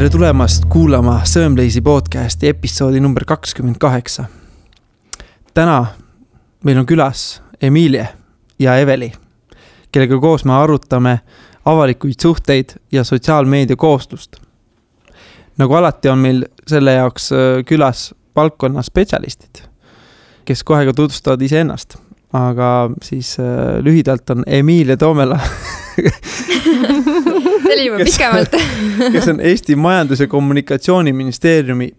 Tere tulemast kuulama Sõõmleisi podcasti episoodi number 28. Täna meil on külas Emilie ja Eveli, kellega koos me arutame avalikuid suhteid ja sotsiaalmeedia koostust. Nagu alati on meil selle jaoks külas valdkonna spetsialistid, kes kohe ka tutvustavad iseennast. Aga siis lühidalt on Emilie Toomela, kes on Eesti Majandus- ja Kommunikatsiooniministeeriumi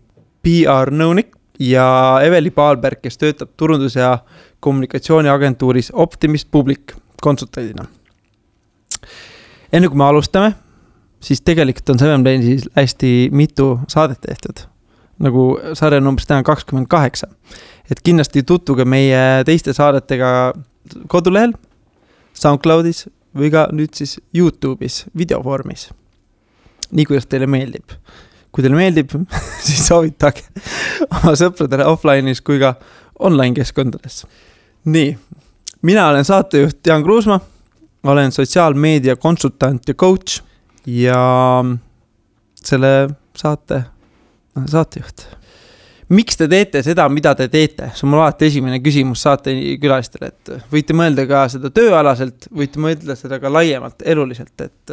PR-nõunik ja Eveli Paalberg, kes töötab turundus- ja kommunikatsiooniagentuuris Optimist Public konsultandina. Enne kui me alustame, siis tegelikult on Sõõmleisis hästi mitu saadet tehtud, nagu sarja numbris täna 28. Et kindlasti tutvuge meie teiste saadetega kodulehel, SoundCloudis või ka nüüd siis YouTube'is videovormis. Nii kuidas teile meeldib. Kui teile meeldib, siis soovitage oma sõpradele offline'is kui ka online keskkondades. Nii, mina olen saatejuht Jaan Kruusma, olen sotsiaalmeedia konsultant ja coach ja selle saatejuht. Miks te teete seda, mida te teete? See on mul alati esimene küsimus saate külalistele, et võite mõelda ka seda tööalaselt, võite mõelda seda ka laiemalt, eluliselt, et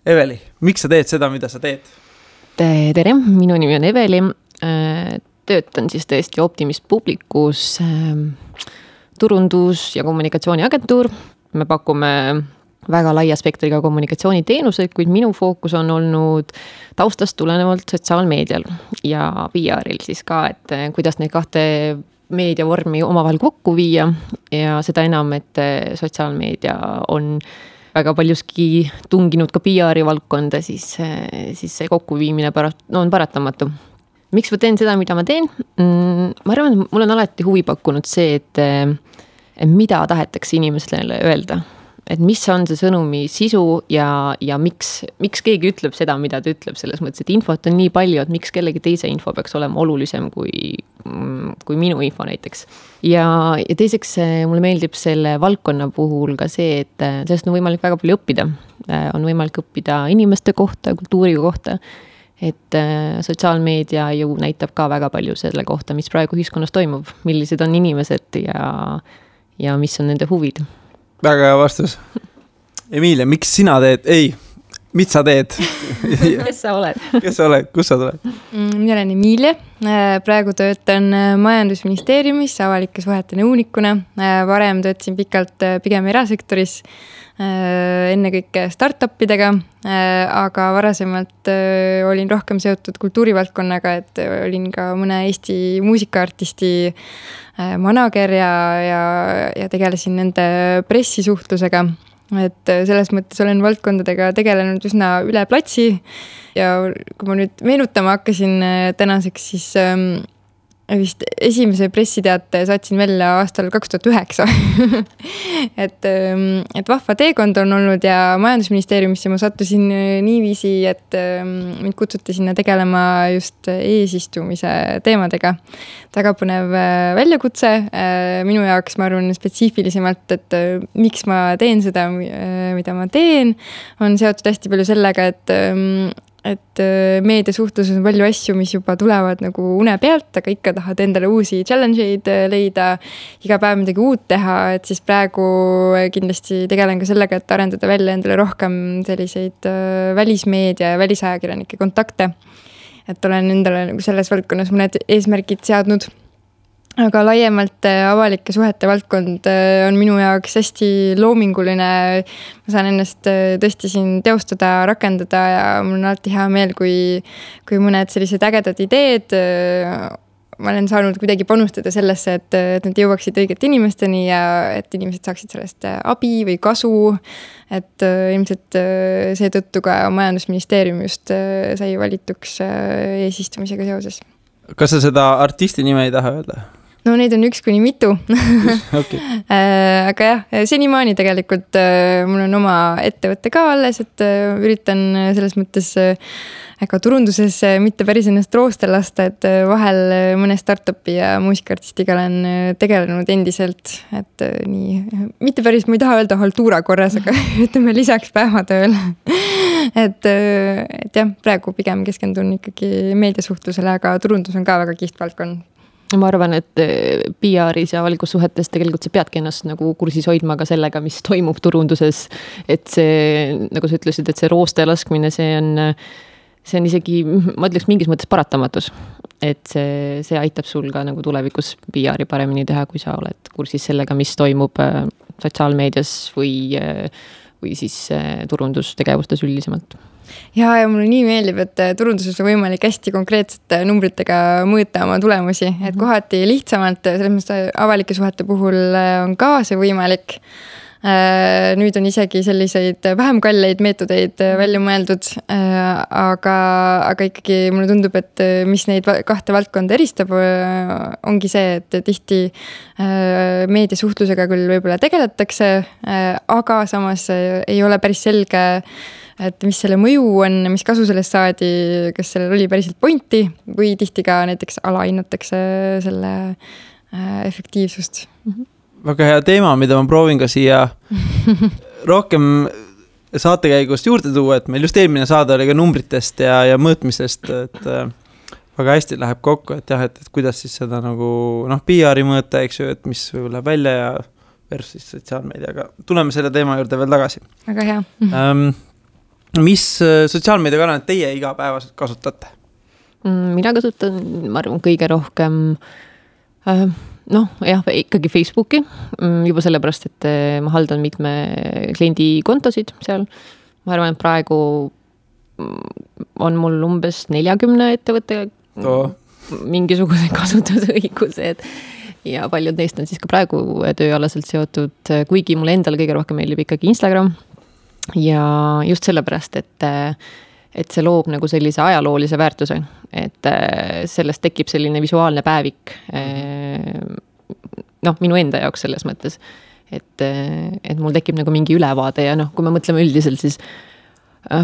Eveli, miks sa teed seda, mida sa teed? Tere, minu nimi on Eveli, töötan siis tõesti Optimist Publicus turundus- ja kommunikatsiooniagentuur. Me pakume väga laia spektriga kommunikatsiooniteenuseid, kuid minu fookus on olnud taustast tulenevalt sotsiaalmeedial ja PR-il siis ka, et kuidas neid kahte meediavormi omavahel kokku viia ja seda enam, et sotsiaalmeedia on väga paljuski tunginud ka PR-i valdkonda, siis see kokkuviimine on paratamatu. Miks ma teen seda, mida ma teen? Ma arvan, mul on alati huvi pakkunud see, et mida tahetakse inimestele öelda. Et mis on see sõnumi sisu ja miks keegi ütleb seda, mida ta ütleb, selles mõttes, et infot on nii palju, et miks kellegi teise info peaks olema olulisem kui minu info näiteks. Ja teiseks mulle meeldib selle valdkonna puhul ka see, et sellest on võimalik väga palju õppida. On võimalik õppida inimeste kohta, kultuuri kohta, et sotsiaalmeedia ju näitab ka väga palju selle kohta, mis praegu ühiskonnas toimub, millised on inimesed ja mis on nende huvid. Väga hea vastus. Emilia, miks sina teed? Mis sa teed? Kes sa oled? Kes sa oled? Kus sa tuled? Mina olen Emilia. Praegu töötan Majandusministeeriumis avalike suhete nõunikuna. Varem töötasin pikalt pigem erasektoris, ennekõike startupidega, aga varasemalt olin rohkem seotud kultuurivaldkonnaga, et olin ka mõne Eesti muusikaartisti manager ja tegelesin nende pressisuhtlusega. Et selles mõttes olen valdkondadega tegelenud üsna üle platsi ja kui ma nüüd meenutama hakkasin tänaseks, siis vist esimese pressiteate saatsin välja aastal 2009. et vahva teekond on olnud ja Majandusministeeriumisse ma sattusin niiviisi, et mind kutsuti sinna tegelema just eesistumise teemadega. Väga põnev väljakutse minu jaoks, ma arvan, spetsiifilisemalt, et miks ma teen seda, mida ma teen, on seotud hästi palju sellega, et meediasuhtluses on palju asju, mis juba tulevad nagu une pealt, aga ikka tahad endale uusi challenge'id leida, iga päev midagi uut teha, et siis praegu kindlasti tegelen ka sellega, et arendada välja endale rohkem selliseid välismeedia ja välisajakirjanike kontakte. Et olen endale nagu selles valdkonnas mõned eesmärgid seadnud. Aga laiemalt avalike suhete valdkond on minu jaoks hästi loominguline. Ma saan ennast tõesti siin teostada, rakendada ja mul on alati hea meel, kui mõned sellised ägedad ideed ma olen saanud kuidagi panustada sellesse, et need jõuaksid õigete inimesteni ja et inimesed saaksid sellest abi või kasu. Et ilmselt seetõttu ka Majandusministeerium just sai valituks eesistumisega seoses. Kas sa seda artisti nime ei taha öelda? no neid on 1-mitu Okay. Aga jah, senimaani tegelikult mul on oma ettevõte ka alles, et üritan selles mõttes ega turunduses mitte päris ennast rooste lasta, et vahel mõne startupi ja muusikaartistiga olen tegelenud endiselt, et nii, mitte päris, ma ei taha öelda haltuura korras, aga ütleme lisaks päevatööl. et jah, praegu pigem keskendun ikkagi meediasuhtlusele, aga turundus on ka väga kihvt valdkond. Ma arvan, et PR-is ja avalikus suhetes tegelikult sa peadki ennast nagu kursis hoidma ka sellega, mis toimub turunduses. Et see, nagu sa ütlesid, et see rooste laskmine, see on isegi, ma ütleks mingis mõttes paratamatus. Et see aitab sul ka nagu tulevikus PR-i paremini teha, kui sa oled kursis sellega, mis toimub sotsiaalmeedias või siis turundustegevustes üldisemalt. Ja mulle nii meeldib, et turunduses on võimalik hästi konkreetsete numbritega mõõta oma tulemusi, et kohati lihtsamalt, selles mõttes avalike suhete puhul on ka see võimalik. Nüüd on isegi selliseid vähem kalleid meetodeid välja mõeldud, aga ikkagi mulle tundub, et mis neid kahte valdkonda eristab, ongi see, et tihti meediasuhtlusega küll võib-olla tegeletakse, aga samas ei ole päris selge, et mis selle mõju on, mis kasu sellest saadi, kas sellel oli päriselt pointi või tihti ka näiteks alahinnatakse selle efektiivsust. Väga hea teema, mida ma proovin ka siia rohkem saatekäigust juurde tuua, et meil just eelmine saade oli ka numbritest ja mõõtmisest, et väga hästi läheb kokku, et jah, et kuidas siis seda nagu PR-i mõõta, eks ju, et mis võib läheb välja ja versus sotsiaalmeediaga. Tuleme selle teema juurde veel tagasi. Väga hea. Mis sotsiaalmeediakanalit teie igapäevaselt kasutate? Mina kasutan, ma arvan, kõige rohkem ikkagi Facebooki, juba sellepärast, et ma haldan mitme kliendi kontosid seal. Ma arvan, et praegu on mul umbes 40 ettevõtte mingisuguse kasutusõigused ja paljud neist on siis ka praegu tööalaselt seotud, kuigi mulle endale kõige rohkem meeldib ikkagi Instagram ja just sellepärast, et see loob nagu sellise ajaloolise väärtuse, et sellest tekib selline visuaalne päevik minu enda jaoks selles mõttes, et mul tekib nagu mingi ülevaade ja kui me mõtleme üldiselt, siis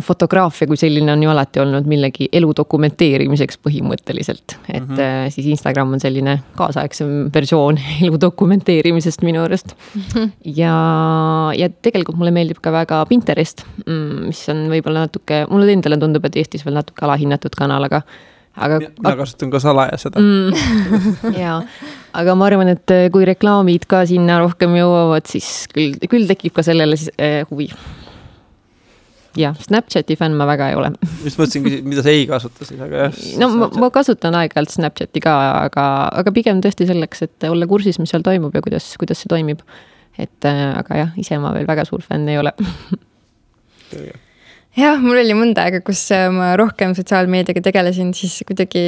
fotograafia kui selline on ju alati olnud millegi elu dokumenteerimiseks põhimõtteliselt, et siis Instagram on selline kaasaegsem versioon elu dokumenteerimisest minu arust ja tegelikult mulle meeldib ka väga Pinterest, mis on võib-olla natuke, mulle endale tundub, et Eestis veel natuke alahinnatud kanal, aga mina kasutan ka salaja seda. Jaa, aga ma arvan, et kui reklaamid ka sinna rohkem jõuavad, siis küll tekib ka sellele huvi. Ja, Snapchati fänn ma väga ei ole. Just mõtlesin, mida sa ei kasuta siis, aga jah. Ma kasutan aeg-ajalt Snapchati ka, aga pigem tõesti selleks, et olla kursis, mis seal toimub ja kuidas see toimib. Aga jah, ise ma veel väga suur fänn ei ole. Jah, mul oli mõnda aega, kus ma rohkem sotsiaalmeediaga tegelesin, siis kuidagi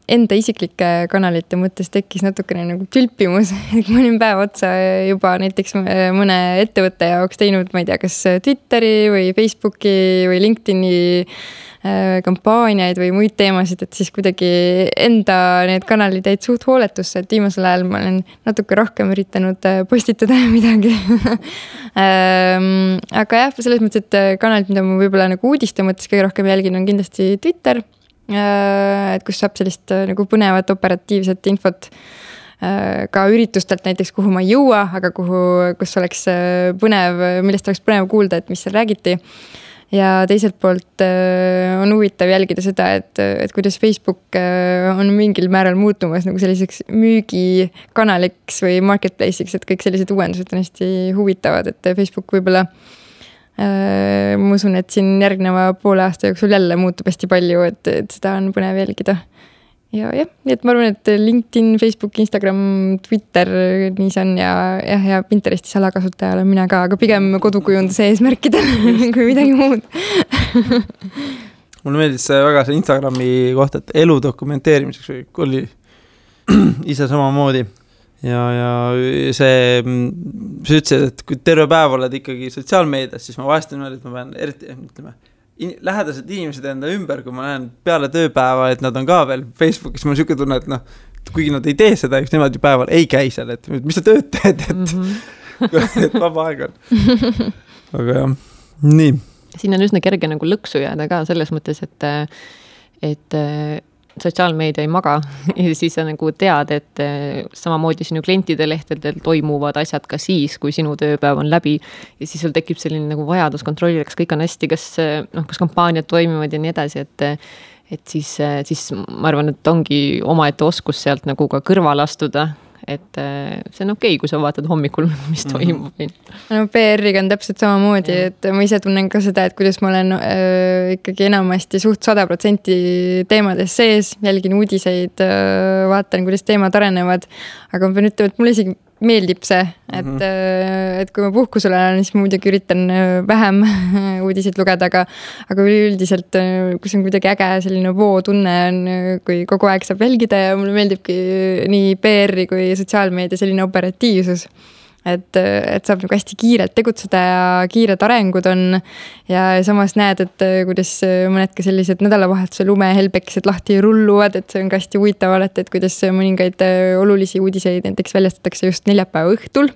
enda isiklike kanalite mõttes tekkis natukene nagu tülpimus. Ma olin päev otsa juba näiteks mõne ettevõtte jaoks teinud, ma ei tea, kas Twitteri või Facebooki või LinkedIni kampaaniaid või muid teemasid, et siis kuidagi enda need kanalid jäid suht hooletusse, et viimasel ajal ma olen natuke rohkem üritanud postitada midagi. Aga jah, selles mõttes, et kanalid, mida ma võib-olla nagu uudiste mõttes kõige rohkem jälgin, on kindlasti Twitter, et kus saab sellist nagu põnevat operatiivset infot ka üritustelt näiteks, kuhu ma ei jõua, aga kus oleks põnev, millest oleks põnev kuulda, et mis seal räägiti. Ja teiselt poolt on huvitav jälgida seda, et kuidas Facebook on mingil määral muutumas nagu selliseks müügikanaliks või marketplace'iks, et kõik sellised uuendused on hästi huvitavad, et Facebook võib-olla ma usun, et siin järgneva poole aasta jooksul jälle muutub hästi palju, et seda on põnev jälgida. Ja nii et ma arvan, et LinkedIn, Facebook, Instagram, Twitter, nii see on ja Pinteresti salakasutaja olen mina ka, aga pigem kodukujunduse eesmärkidel kui midagi muud. Mulle meeldis väga see Instagrami kohta, et elu dokumenteerimiseks oli ise samamoodi. Ja see, sa ütlesid, et kui terve päev oled ikkagi sotsiaalmeedias, siis ma vahest on, et ma pean eriti, lähedased inimesed enda ümber, kui ma näen peale tööpäeva, et nad on ka veel Facebookis, ma olen siuke tunne, et kuigi nad ei tee seda, eks nemad ju päeval ei käi seal, et mis sa tööd teed, et vaba aeg on. Aga jah, nii. Siin on üsna kerge nagu lõksu jääda ka selles mõttes, et sotsiaalmeedia ei maga ja siis sa nagu tead, et samamoodi sinu klientide lehtedel toimuvad asjad ka siis, kui sinu tööpäev on läbi ja siis sul tekib selline nagu vajadus kontrollida, kas kõik on hästi, kas kampaaniad toimivad ja nii edasi, et siis ma arvan, et ongi omaette oskus sealt nagu ka kõrval astuda, et see on okei, kui sa vaatad hommikul, mis toimub. No PR-iga on täpselt samamoodi, et ma ise tunnen ka seda, et kuidas ma olen ikkagi enamasti suht 100% teemades sees, jälgin uudiseid, vaatan, kuidas teemad arenevad, aga ma pean ütlema, et mulle isegi meeldib see, et kui ma puhkusel olen, siis ma muidugi üritan vähem uudiseid lugeda, aga üldiselt, kus on kuidagi äge selline vootunne on, kui kogu aeg saab jälgida ja mulle meeldibki nii PR-i kui sotsiaalmeedia selline operatiivsus. Et saab nagu hästi kiirelt tegutseda ja kiired arengud on ja samas näed, et kuidas mõned ka sellised nädalavahetuse lumehelbekesed lahti rulluvad, et see on ka hästi huvitav alati, et kuidas mõningaid olulisi uudiseid näiteks väljastatakse just neljapäeva õhtul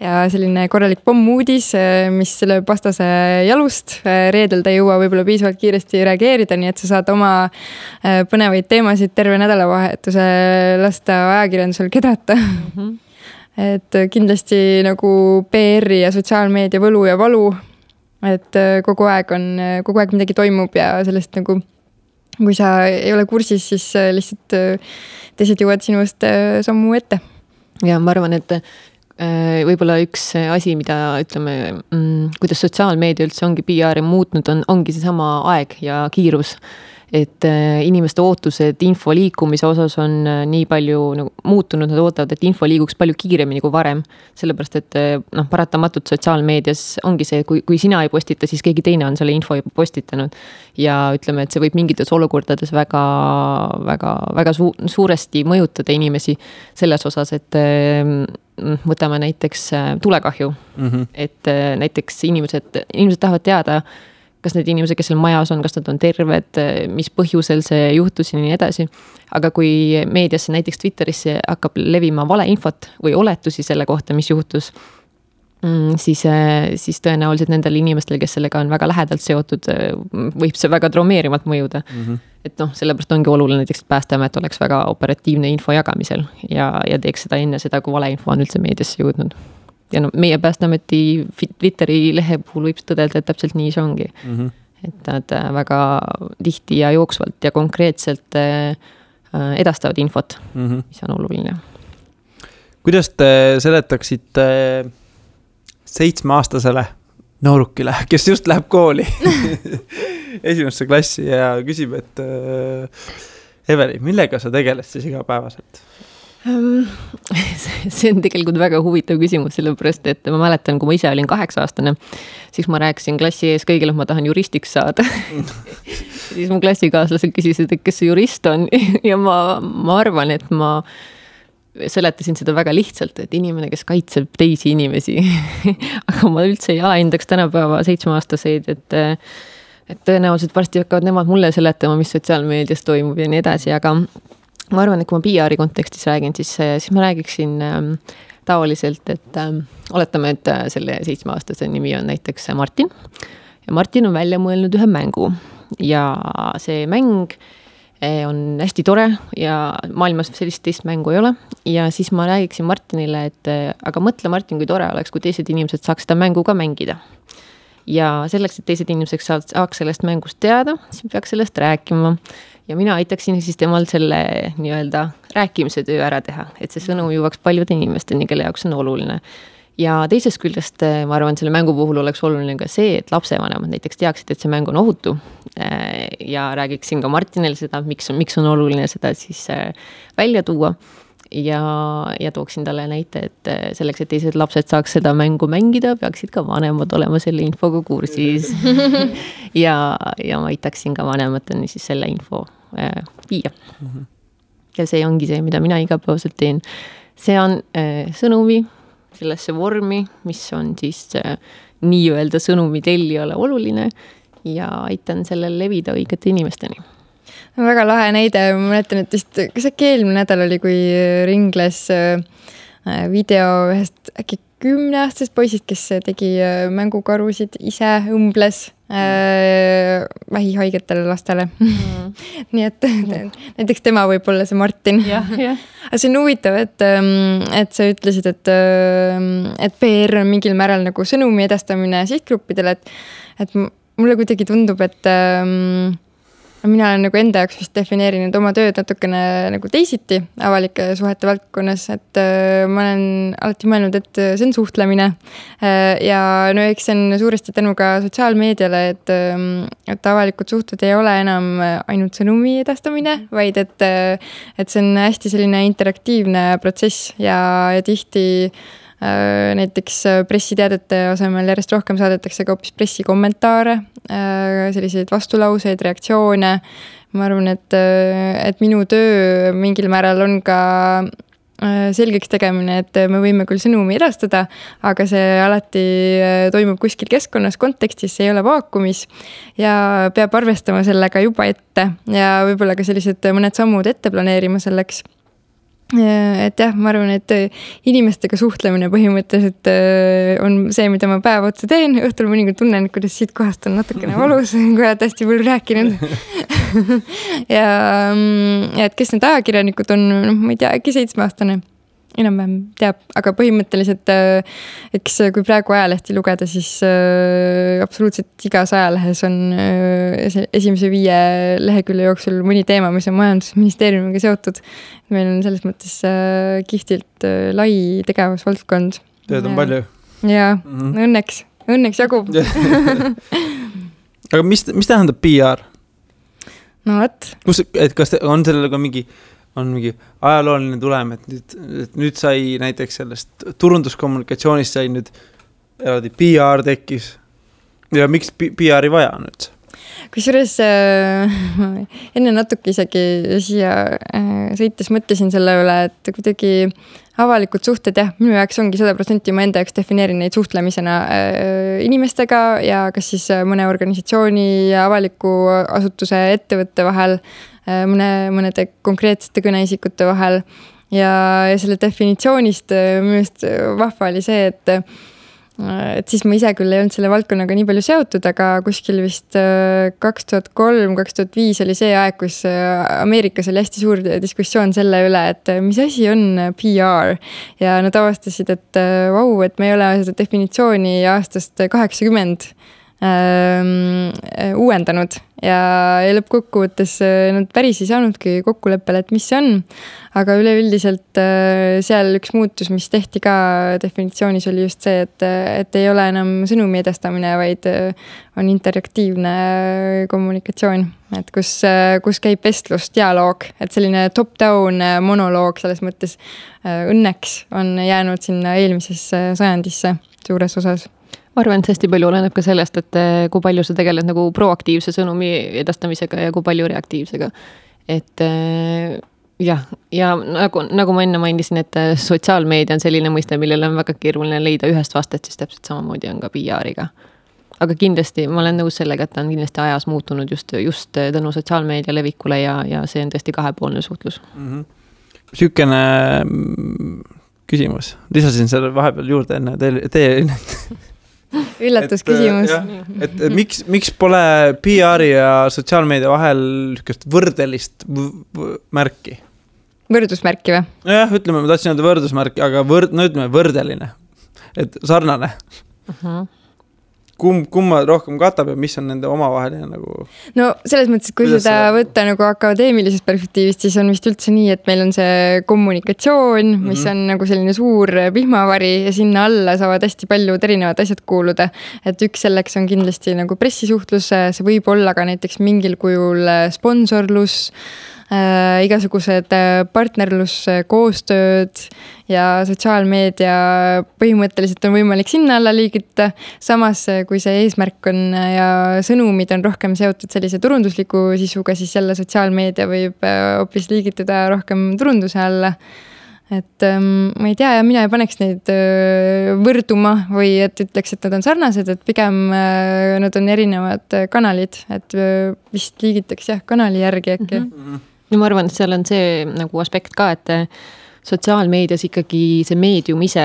ja selline korralik pommuudis, mis selle vastase jalust reedel ta ei jõua võib-olla piisavalt kiiresti reageerida, nii et sa saad oma põnevaid teemasid terve nädalavahetuse lasta ajakirjandusel kedrata. Et kindlasti nagu PR-i ja sotsiaalmeedia võlu ja valu, et kogu aeg midagi toimub ja sellest nagu, kui sa ei ole kursis, siis lihtsalt teised jõuad sinust sammu ette. Ja ma arvan, et võib-olla üks asi, mida ütleme, kuidas sotsiaalmeedia üldse ongi PR-i muutnud, ongi see sama aeg ja kiirus. Et inimeste ootused info liikumise osas on nii palju nagu muutunud, nad ootavad, et info liiguks palju kiiremini kui varem. Sellepärast, et paratamatult sotsiaalmeedias ongi see, kui sina ei postita, siis keegi teine on selle info juba postitanud. Ja ütleme, et see võib mingites olukordades väga suuresti mõjutada inimesi selles osas, et võtame näiteks tulekahju. Et näiteks inimesed tahavad teada, kas need inimesed, kes seal majas on, kas nad on terved, mis põhjusel see juhtus ja nii edasi. Aga kui meediasse, näiteks Twitterisse hakkab levima valeinfot või oletusi selle kohta, mis juhtus, siis tõenäoliselt nendel inimestel, kes sellega on väga lähedalt seotud, võib see väga traumeerimalt mõjuda. Et sellepärast ongi oluline näiteks, et Päästeamet oleks väga operatiivne info jagamisel ja teeks seda enne seda, kui valeinfo on üldse meediasse jõudnud. Ja meie Päästeameti Twitteri lehe puhul võib tõdelda, et täpselt nii see ongi. Et nad väga tihti ja jooksvalt ja konkreetselt edastavad infot, mis on oluline. Kuidas te seletaksite 7-aastasele noorukile, kes just läheb kooli esimesse klassi ja küsib, et Eveli, millega sa tegeled siis igapäevaselt? See on tegelikult väga huvitav küsimus, sellepärast, et ma mäletan, kui ma ise olin 8-aastane, siis ma rääkisin klassi ees kõigile, et ma tahan juristiks saada. Siis mu klassikaaslased küsisid, et kes see jurist on ja ma arvan, et ma seletasin seda väga lihtsalt, et inimene, kes kaitseb teisi inimesi. Aga ma üldse ei alahindaks tänapäeva 7-aastaseid, et tõenäoliselt varsti hakkavad nemad mulle seletama, mis sotsiaalmeedias toimub ja nii edasi, aga ma arvan, et kui ma PR-i kontekstis räägin, siis ma räägiksin taoliselt, et oletame, et selle 7-aastase nimi on näiteks Martin. Ja Martin on välja mõelnud ühe mängu ja see mäng on hästi tore ja maailmas sellist teist mängu ei ole. Ja siis ma räägiksin Martinile, et aga mõtle Martin, kui tore oleks, kui teised inimesed saaks seda mängu ka mängida. Ja selleks, et teised inimesed saaks sellest mängust teada, siis peaks sellest rääkima. Ja mina aitaksin siis temal selle nii-öelda rääkimise töö ära teha, et see sõnum jõuaks paljude inimesteni, kelle jaoks on oluline. Ja teisest küljest ma arvan, selle mängu puhul oleks oluline ka see, et lapsevanemad näiteks teaksid, et see mäng on ohutu. Ja räägiksin ka Martinile seda, miks on oluline seda siis välja tuua. Ja tooksin talle näite, et selleks, et teised lapsed saaks seda mängu mängida, peaksid ka vanemad olema selle infoga kursis. ja ma aitaksin ka vanemateni siis selle info viia. Ja see ongi see, mida mina igapäevaselt teen. See on sõnumi sellesse vormi, mis on siis nii-öelda sõnumi tellijale oluline ja aitan sellel levida õigete inimesteni. Väga lahe näide, ma mäletan, et vist, kas äkki eelmine nädal oli, kui ringles video ühest äkki 10-aastasest poisist, kes tegi mängukarusid ise, õmbles vähihaigetele lastele. Nii et näiteks tema võib olla see Martin. Aga see on huvitav, et sa ütlesid, et PR on mingil määral nagu sõnumi edastamine sihtgruppidele, et mulle kuidagi tundub, et mina olen nagu enda jaoks vist defineerinud oma tööd natukene nagu teisiti avalike suhete valdkonnas, et ma olen alati mõelnud, et see on suhtlemine. Ja no eks see on suuresti tänu ka sotsiaalmeediale, et avalikud suhted ei ole enam ainult sõnumi edastamine, vaid et see on hästi selline interaktiivne protsess ja tihti näiteks pressiteadete asemel järjest rohkem saadetakse ka hoopis pressikommentaare, selliseid vastulauseid, reaktsioone. Ma arvan, et minu töö mingil määral on ka selgeks tegemine, et me võime küll sõnumi edastada, aga see alati toimub kuskil keskkonnas, kontekstis, see ei ole vaakumis ja peab arvestama sellega juba ette ja võib-olla ka sellised mõned sammud ette planeerima selleks. Et jah, ma arvan, et inimestega suhtlemine põhimõtteliselt on see, mida ma päev otsa teen. Õhtul mõnikord tunnen, kuidas siit kohast on natukene valus, kui oled hästi palju rääkinud. ja et kes need ajakirjanikud on, ma ei tea, äkki 7-aastane enam-vähem teab, aga põhimõtteliselt eks kui praegu ajalehti lugeda, siis absoluutselt igas ajalehes on esimese 5 lehekülje jooksul mõni teema, mis on majandusministeeriumiga seotud. Meil on selles mõttes kihtilt lai tegevusvaldkond. Tööd on palju. Ja, õnneks jagub. Aga mis tähendab PR? No võt. Kas on sellele ka mingi ajalooline tulem, et nüüd sai näiteks sellest turunduskommunikatsioonist sai nüüd eraldi PR tekkis ja miks PR-i vaja nüüd? Kusjuures enne natuke isegi siia sõites mõtlesin selle üle, et kuidagi avalikud suhted, jah, minu jaoks ongi 100% ma enda jaoks defineerin neid suhtlemisena inimestega ja kas siis mõne organisatsiooni ja avaliku asutuse ettevõtte vahel, mõnede konkreetsete kõneisikute vahel ja selle definitsioonist minu just vahva oli see, et siis ma ise küll ei olnud selle valdkonnaga nii palju seotud, aga kuskil vist 2003-2005 oli see aeg, kus Ameerikas oli hästi suur diskussioon selle üle, et mis asi on PR ja nad avastasid, et vau, et me ei ole seda definitsiooni aastast 80 uuendanud ja lõppkokkuvõttes nad päris ei saanudki kokkuleppele, et mis see on, aga üleüldiselt seal üks muutus, mis tehti ka definitsioonis oli just see, et ei ole enam sõnumi edastamine, vaid on interaktiivne kommunikatsioon, et kus käib vestlus, dialoog, et selline top-down monoloog selles mõttes õnneks on jäänud sinna eelmisesse sajandisse suures osas. Ma arvan, et hästi palju oleneb ka sellest, et kui palju sa tegeled nagu proaktiivse sõnumi edastamisega ja kui palju reaktiivsega. Et jah, ja nagu ma enne mainisin, et sotsiaalmeedia on selline mõiste, millel on väga keeruline leida ühest vastet, siis täpselt samamoodi on ka PR-iga. Aga kindlasti, ma olen nõus sellega, et ta on kindlasti ajas muutunud just tänu sotsiaalmeedia levikule ja see on tõesti kahepoolne suhtlus. Sükene küsimus. Lisasin selle vahepeal juurde enne teie üllatusküsimus. Et miks pole PR-i ja sotsiaalmeedia vahel võrdelist märki? Võrdusmärki või? Jah, ütleme, ma tahtsin öelda võrdusmärki, aga ütleme võrdeline. Et sarnane. Kumma rohkem katab ja mis on nende omavaheline nagu... No selles mõttes, kui seda võtta nagu akadeemilisest perspektiivist, siis on vist üldse nii, et meil on see kommunikatsioon, mis on nagu selline suur vihmavari ja sinna alla saavad hästi paljud erinevad asjad kuuluda. Et üks selleks on kindlasti nagu pressisuhtlus, see võib olla ka näiteks mingil kujul sponsorlus, igasugused partnerlus, koostööd ja sotsiaalmeedia põhimõtteliselt on võimalik sinna alla liigita. Samas, kui see eesmärk on ja sõnumid on rohkem seotud sellise turundusliku sisuga, siis jälle sotsiaalmeedia võib hoopis liigituda rohkem turunduse alla. et ma ei tea ja mina ei paneks neid võrduma või et ütleks, et nad on sarnased, et pigem nad on erinevad kanalid, et vist liigitaks kanali järgi äkki. Ja ma arvan, et seal on see nagu aspekt ka, et sotsiaalmeedias ikkagi see meedium ise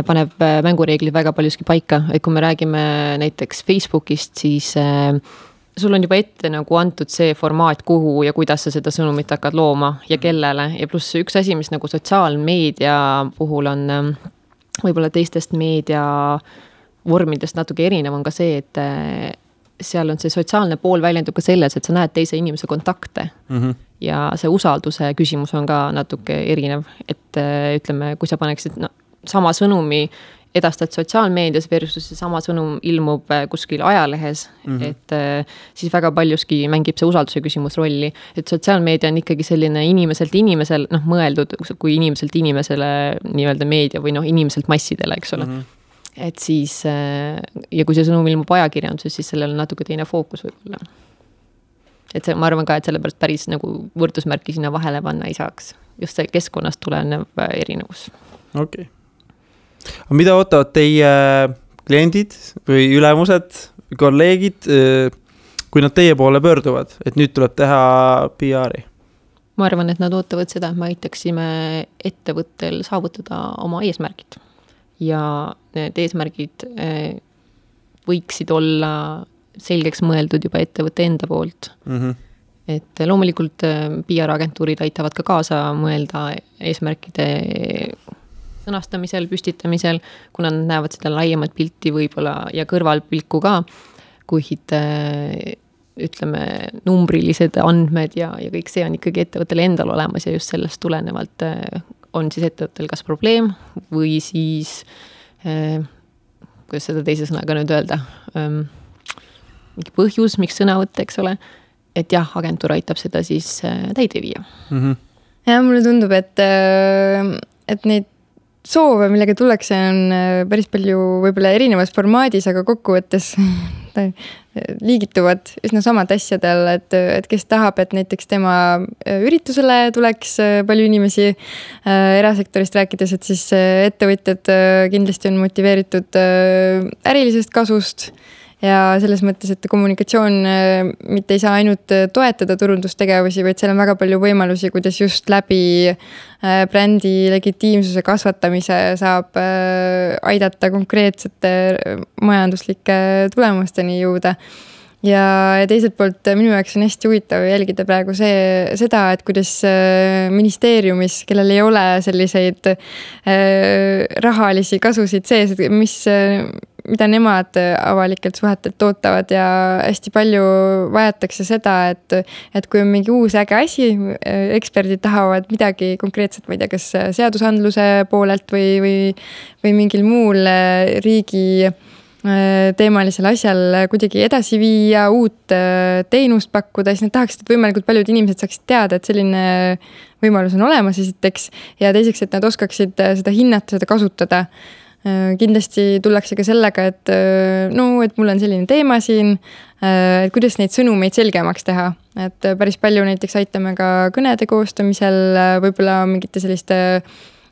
paneb mängureeglid väga paljuski paika, et kui me räägime näiteks Facebookist, siis sul on juba ette nagu antud see formaat, kuhu ja kuidas sa seda sõnumit hakkad looma ja kellele. Ja pluss üks asi, mis nagu sotsiaalmeedia puhul on võib-olla teistest meedia vormidest natuke erinev, on ka see, et seal on see sotsiaalne pool väljendub ka selles, et sa näed teise inimese kontakte. Ja see usalduse küsimus on ka natuke erinev, et ütleme, kui sa paneksid sama sõnumi edastad sotsiaalmeedias versus sama sõnum ilmub kuskil ajalehes, et siis väga paljuski mängib see usalduse küsimus rolli, et sotsiaalmeedia on ikkagi selline inimeselt inimesel, mõeldud kui inimeselt inimesele nii-öelda meedia või inimeselt massidele, eks ole. Et siis, ja kui see sõnum ilmub ajakirjanduses, siis sellel on natuke teine fookus võib-olla. Et see, ma arvan ka, et sellepärast päris nagu võrdusmärki sinna vahele panna ei saaks. Just see keskkonnast tulenev erinevus. Okei. Aga mida ootavad teie kliendid või ülemused, kolleegid, kui nad teie poole pöörduvad, et nüüd tuleb teha PR-i? Ma arvan, et nad ootavad seda, et me aitaksime ettevõttel saavutada oma eesmärgid. Ja need eesmärgid võiksid olla selgeks mõeldud juba ettevõtte enda poolt. Et loomulikult PR-agentuurid aitavad ka kaasa mõelda eesmärkide sõnastamisel, püstitamisel, kuna nad näevad seda laiemat pilti võib-olla ja kõrvalpilku ka, kuid ütleme, numbrilised andmed ja kõik see on ikkagi ettevõttel endal olemas ja just sellest tulenevalt on siis ettevõttel kas probleem või siis, kuidas seda teise sõnaga nüüd öelda, mingi põhjus, miks sõna võtta, eks ole, et jah, agentuur aitab seda siis täide viia. Ja mulle tundub, et neid soove, millega tullakse, on päris palju võib-olla erinevas formaadis, aga kokkuvõttes liigituvad üsna samad asjadel, et kes tahab, et näiteks tema üritusele tuleks palju inimesi erasektorist rääkides, et siis ettevõtjad kindlasti on motiveeritud ärilisest kasust ja selles mõttes, et kommunikatsioon mitte ei saa ainult toetada turundustegevusi, vaid seal on väga palju võimalusi, kuidas just läbi brändi legitiimsuse kasvatamise saab aidata konkreetsete majanduslike tulemusteni jõuda. Ja teiselt poolt minu jaoks on hästi huvitav jälgida praegu seda, et kuidas ministeeriumis, kellel ei ole selliseid rahalisi kasusid sees, mida nemad avalikelt suhetelt tootavad ja hästi palju vajatakse seda, et kui on mingi uus äge asi, eksperdid tahavad midagi konkreetset, ma ei tea, kas seadusandluse poolelt või mingil muul riigi teemalisel asjal kuidagi edasi viia, uut teenust pakkuda, siis nad tahaksid, et võimalikult paljud inimesed saaksid teada, et selline võimalus on olemas esiteks ja teiseks, et nad oskaksid seda hinnata, seda kasutada. Kindlasti tullakse ka sellega, et mul on selline teema siin, et kuidas neid sõnumeid selgemaks teha. Et päris palju näiteks aitame ka kõnede koostamisel, võib-olla mingite selliste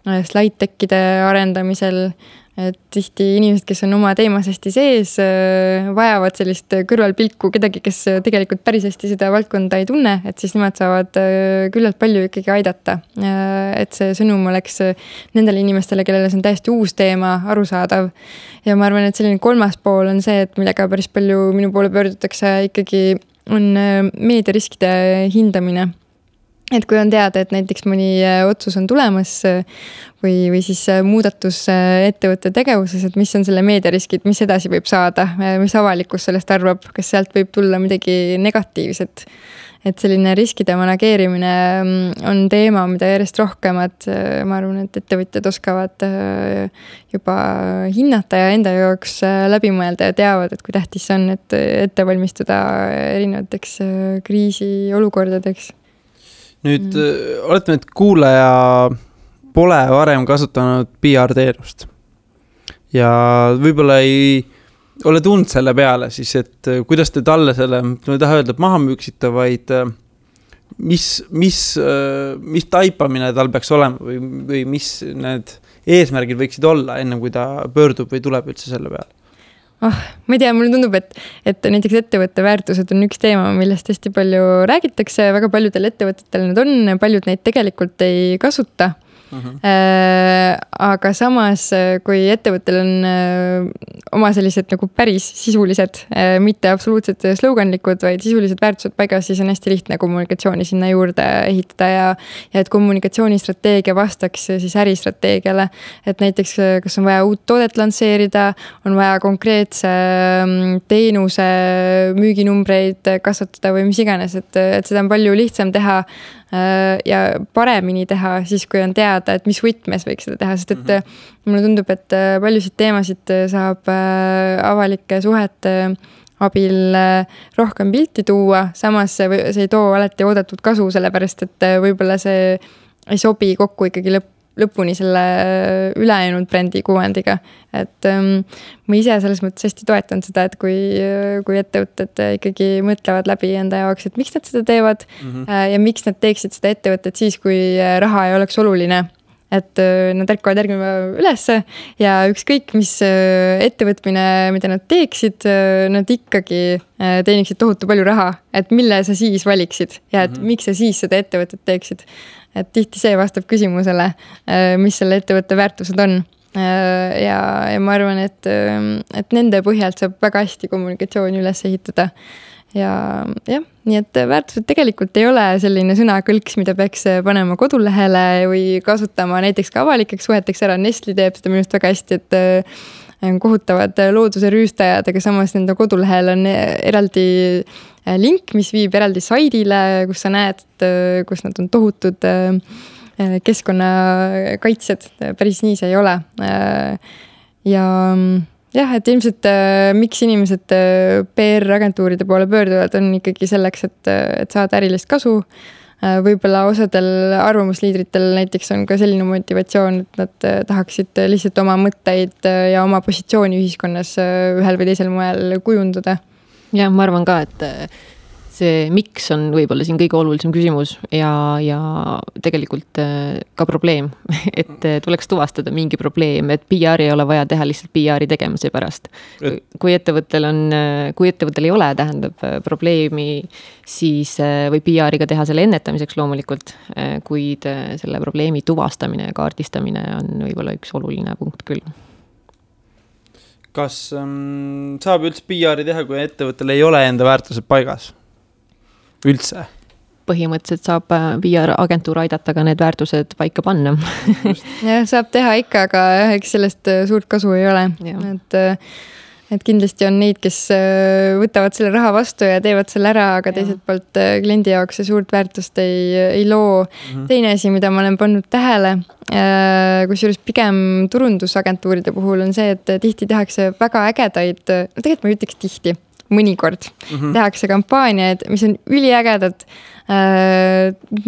slide-tekkide arendamisel, et tihti inimesed, kes on oma teemas hästi sees, vajavad sellist kõrvalpilku kedagi, kes tegelikult päris hästi seda valdkonda ei tunne, et siis nemad saavad küllalt palju ikkagi aidata. Et see sõnum oleks nendele inimestele, kellele see on täiesti uus teema, arusaadav. Ja ma arvan, et selline kolmas pool on see, et millega päris palju minu poole pöördutakse ikkagi on meediariskide hindamine. Et kui on teada, et näiteks mõni otsus on tulemas või siis muudatus ettevõtte tegevuses, et mis on selle meediariskid, mis edasi võib saada, mis avalikkus sellest arvab, kas sealt võib tulla midagi negatiivset. Et selline riskide manageerimine on teema, mida järjest rohkemad, ma arvan, et ettevõtjad oskavad juba hinnata ja enda jaoks läbi mõelda ja teavad, et kui tähtis on, et ette valmistuda erinevateks kriisiolukordadeks. Nüüd oletame, et kuulaja pole varem kasutanud PR-teenust ja võib-olla ei ole tundnud selle peale siis, et kuidas te talle selle, ma ei taha öelda, et maha müüksite, vaid mis taipamine tal peaks olema või mis need eesmärgid võiksid olla enne kui ta pöördub või tuleb üldse selle peale? Ma ei tea, mulle tundub, et näiteks ettevõtte väärtused on üks teema, millest hästi palju räägitakse, väga paljudel ettevõtetel need on, paljud neid tegelikult ei kasuta. Aga samas, kui ettevõttel on oma sellised nagu päris sisulised, mitte absoluutselt sloganlikud, vaid sisulised väärtused paigas, siis on hästi lihtne kommunikatsiooni sinna juurde ehitada ja et kommunikatsioonistrateegia vastaks siis äristrateegiale. Et näiteks, kas on vaja uut toodet lansseerida, on vaja konkreetse teenuse müüginumbreid kasvatada või mis iganes, et seda on palju lihtsam teha ja paremini teha siis, kui on teada, et mis võtmes võiks seda teha, sest et mulle tundub, et paljusid teemasid saab avalike suhete abil rohkem pilti tuua, samas see ei too alati oodatud kasu, sellepärast et võib-olla see ei sobi kokku ikkagi lõpuni selle ülejäänud brändi kuvandiga. Et ma ise selles mõttes hästi toetan seda, et kui ettevõtted ikkagi mõtlevad läbi enda jaoks, et miks nad seda teevad ja miks nad teeksid seda ettevõtet siis, kui raha ei oleks oluline. Et nad ärkavad järgmine päev ülesse ja ükskõik, mis ettevõtmine, mida nad teeksid, nad ikkagi teeniksid tohutu palju raha, et mille sa siis valiksid ja et miks sa siis seda ettevõtet teeksid. Et tihti see vastab küsimusele, mis selle ettevõtte väärtused on. Ja ma arvan, et nende põhjalt saab väga hästi kommunikatsiooni üles ehitada. Ja nii et väärtused tegelikult ei ole selline sõnakõlks, mida peaks panema kodulehele või kasutama näiteks ka avalikeks suheteks ära. Nestle teeb seda minust väga hästi, et kohutavad looduse rüüstajad, aga samas nende kodulehel on eraldi link, mis viib eraldi saidile, kus sa näed, kus nad on tohutud keskkonnakaitsjad. Päris nii see ei ole. Ja et ilmselt miks inimesed PR-agentuuride poole pöörduvad on ikkagi selleks, et saada ärilist kasu. Võib-olla osadel arvamusliidritel näiteks on ka selline motivatsioon, et nad tahaksid lihtsalt oma mõtteid ja oma positsiooni ühiskonnas ühel või teisel moel kujundada. Ja ma arvan ka, et see miks on võib-olla siin kõige olulisem küsimus ja tegelikult ka probleem, et tuleks tuvastada mingi probleem, et PR ei ole vaja teha lihtsalt PR-i tegemise pärast. Kui ettevõttel ei ole, tähendab probleemi, siis või PR-iga teha selle ennetamiseks loomulikult, kuid selle probleemi tuvastamine ja kaardistamine on võib-olla üks oluline punkt küll. Kas saab üldse PR-i teha, kui ettevõttel ei ole enda väärtused paigas? Üldse? Põhimõtteliselt saab PR-agentuur aidata ka need väärtused paika panna. Ja, saab teha ikka, aga eks sellest suurt kasu ei ole. Et kindlasti on neid, kes võtavad selle raha vastu ja teevad selle ära, aga teiselt poolt kliendi jaoks see suurt väärtust ei loo. Teine asi, mida ma olen pannud tähele, kusjuures pigem turundusagentuuride puhul on see, et tihti tehakse väga ägedaid, tegelikult ma ütleks tihti, mõnikord tehakse kampaaniaid, mis on üliägedad,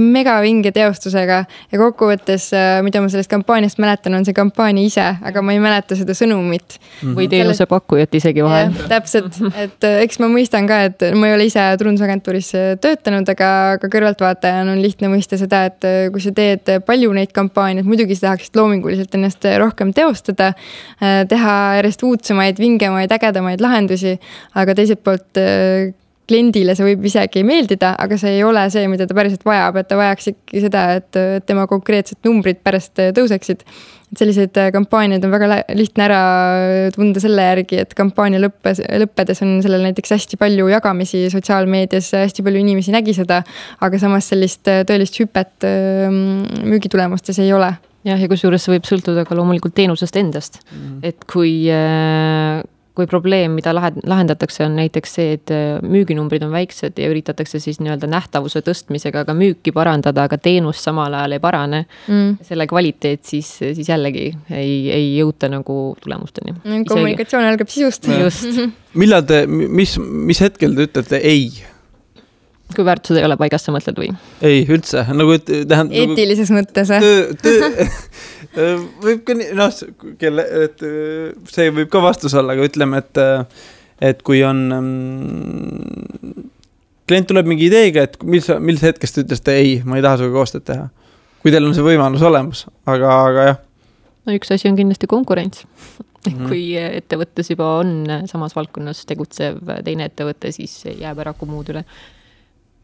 megavinge teostusega ja kokkuvõttes, mida ma sellest kampaaniast mäletan, on see kampaania ise, aga ma ei mäleta seda sõnumit. Või teenuse pakkujat isegi vahel. Täpselt, et eks ma mõistan ka, et ma ei ole ise turundusagentuuris töötanud, aga kõrvaltvaatajana on lihtne mõista seda, et kui sa teed palju neid kampaaniaid, muidugi sa tahaksid loominguliselt ennast rohkem teostada, teha järjest uudsemaid, vingemaid, ägedamaid lahendusi, aga teiselt poolt kliendile see võib isegi meeldida, aga see ei ole see, mida ta päriselt vajab, et ta vajaks ikkagi seda, et tema konkreetsed numbrid pärast tõuseksid. Et sellised kampaaniad on väga lihtne ära tunda selle järgi, et kampaania lõppedes on sellel näiteks hästi palju jagamisi sotsiaalmeedias, hästi palju inimesi nägi seda, aga samas sellist tõelist hüpet müügitulemustes ei ole. Ja kusjuures see võib sõltuda ka loomulikult teenusest endast, et kui probleem, mida lahendatakse, on näiteks see, et müüginumbrid on väiksed ja üritatakse siis nii-öelda nähtavuse tõstmisega ka müüki parandada, aga teenus samal ajal ei parane. Selle kvaliteet siis jällegi ei jõuta nagu tulemusteni. Kommunikatsioon algab sisust. Just. Millal mis hetkel te ütlete ei? Kui väärtused ei ole paigas, sa mõtled või? Ei, üldse. Nagu, eetilises mõttes. Võib ka see võib ka vastus olla, aga ütleme, et kui on klient tuleb mingi ideega, et mis hetkest te ütlesite ei, ma ei taha suga koostööd teha. Kui teil on see võimalus olemas, aga jah. No üks asi on kindlasti konkurents. Kui ettevõttes juba on samas valdkonnas tegutsev teine ettevõte, siis jääb ära muud üle.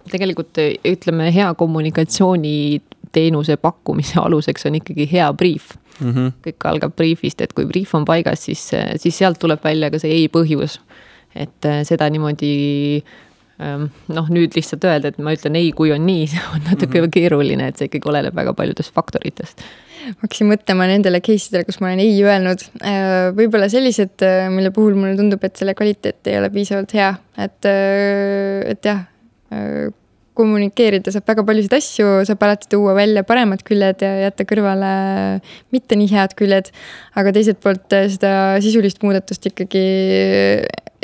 Tegelikult ütleme, hea kommunikatsiooni teenuse pakkumise aluseks on ikkagi hea brief. Kõik algab briefist, et kui brief on paigas, siis sealt tuleb välja ka see ei põhjus. Et seda niimoodi, nüüd lihtsalt öelda, et ma ütlen ei, kui on nii, see on natuke keeruline, et see ikkagi oleneb väga paljudest faktoritest. Hakkasin mõtlema nendele case'idele, kus ma olen ei öelnud. Võib-olla sellised, mille puhul mulle tundub, et selle kvaliteet ei ole piisavalt hea. Et jah, kommunikeerida saab väga paljusid asju, saab alati tuua välja paremad küljed ja jätta kõrvale mitte nii head küljed, aga teiselt poolt seda sisulist muudatust ikkagi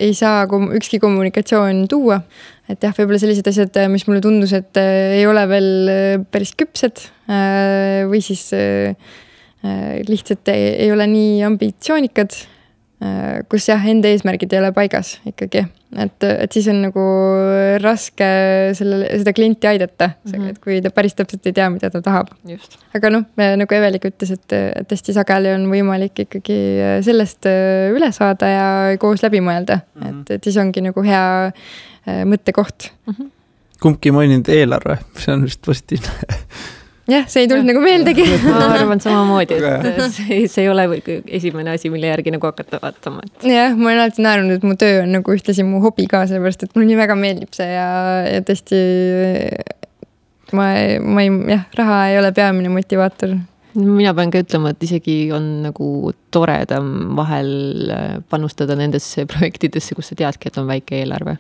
ei saa ükski kommunikatsioon tuua. Et jah, võib-olla sellised asjad, mis mulle tundus, et ei ole veel päris küpsed või siis lihtsalt ei ole nii ambitsioonikad, kus jah, enda eesmärgid ei ole paigas ikkagi. Et siis on nagu raske seda klienti aidata, et kui ta päris täpselt ei tea, mida ta tahab. Just. Aga nagu Evelik ütles, et hästi sageli on võimalik ikkagi sellest üle saada ja koos läbi mõelda. Et siis ongi nagu hea mõttekoht. Kumbki maininud eelarve, see on vist positiivne. Jah, see ei tulnud nagu meeldegi. Ma arvan samamoodi, et see ei ole esimene asi, mille järgi nagu hakata vaatama. Jah, ma olen alati naerunud, et mu töö on nagu ühtlasi mu hobi ka, sellepärast, et mul nii väga meeldib see ja tõesti raha ei ole peamine motivaator. Mina pean ka ütlema, et isegi on nagu toredam vahel panustada nendesse projektidesse, kus sa teadki, et on väike eelarve.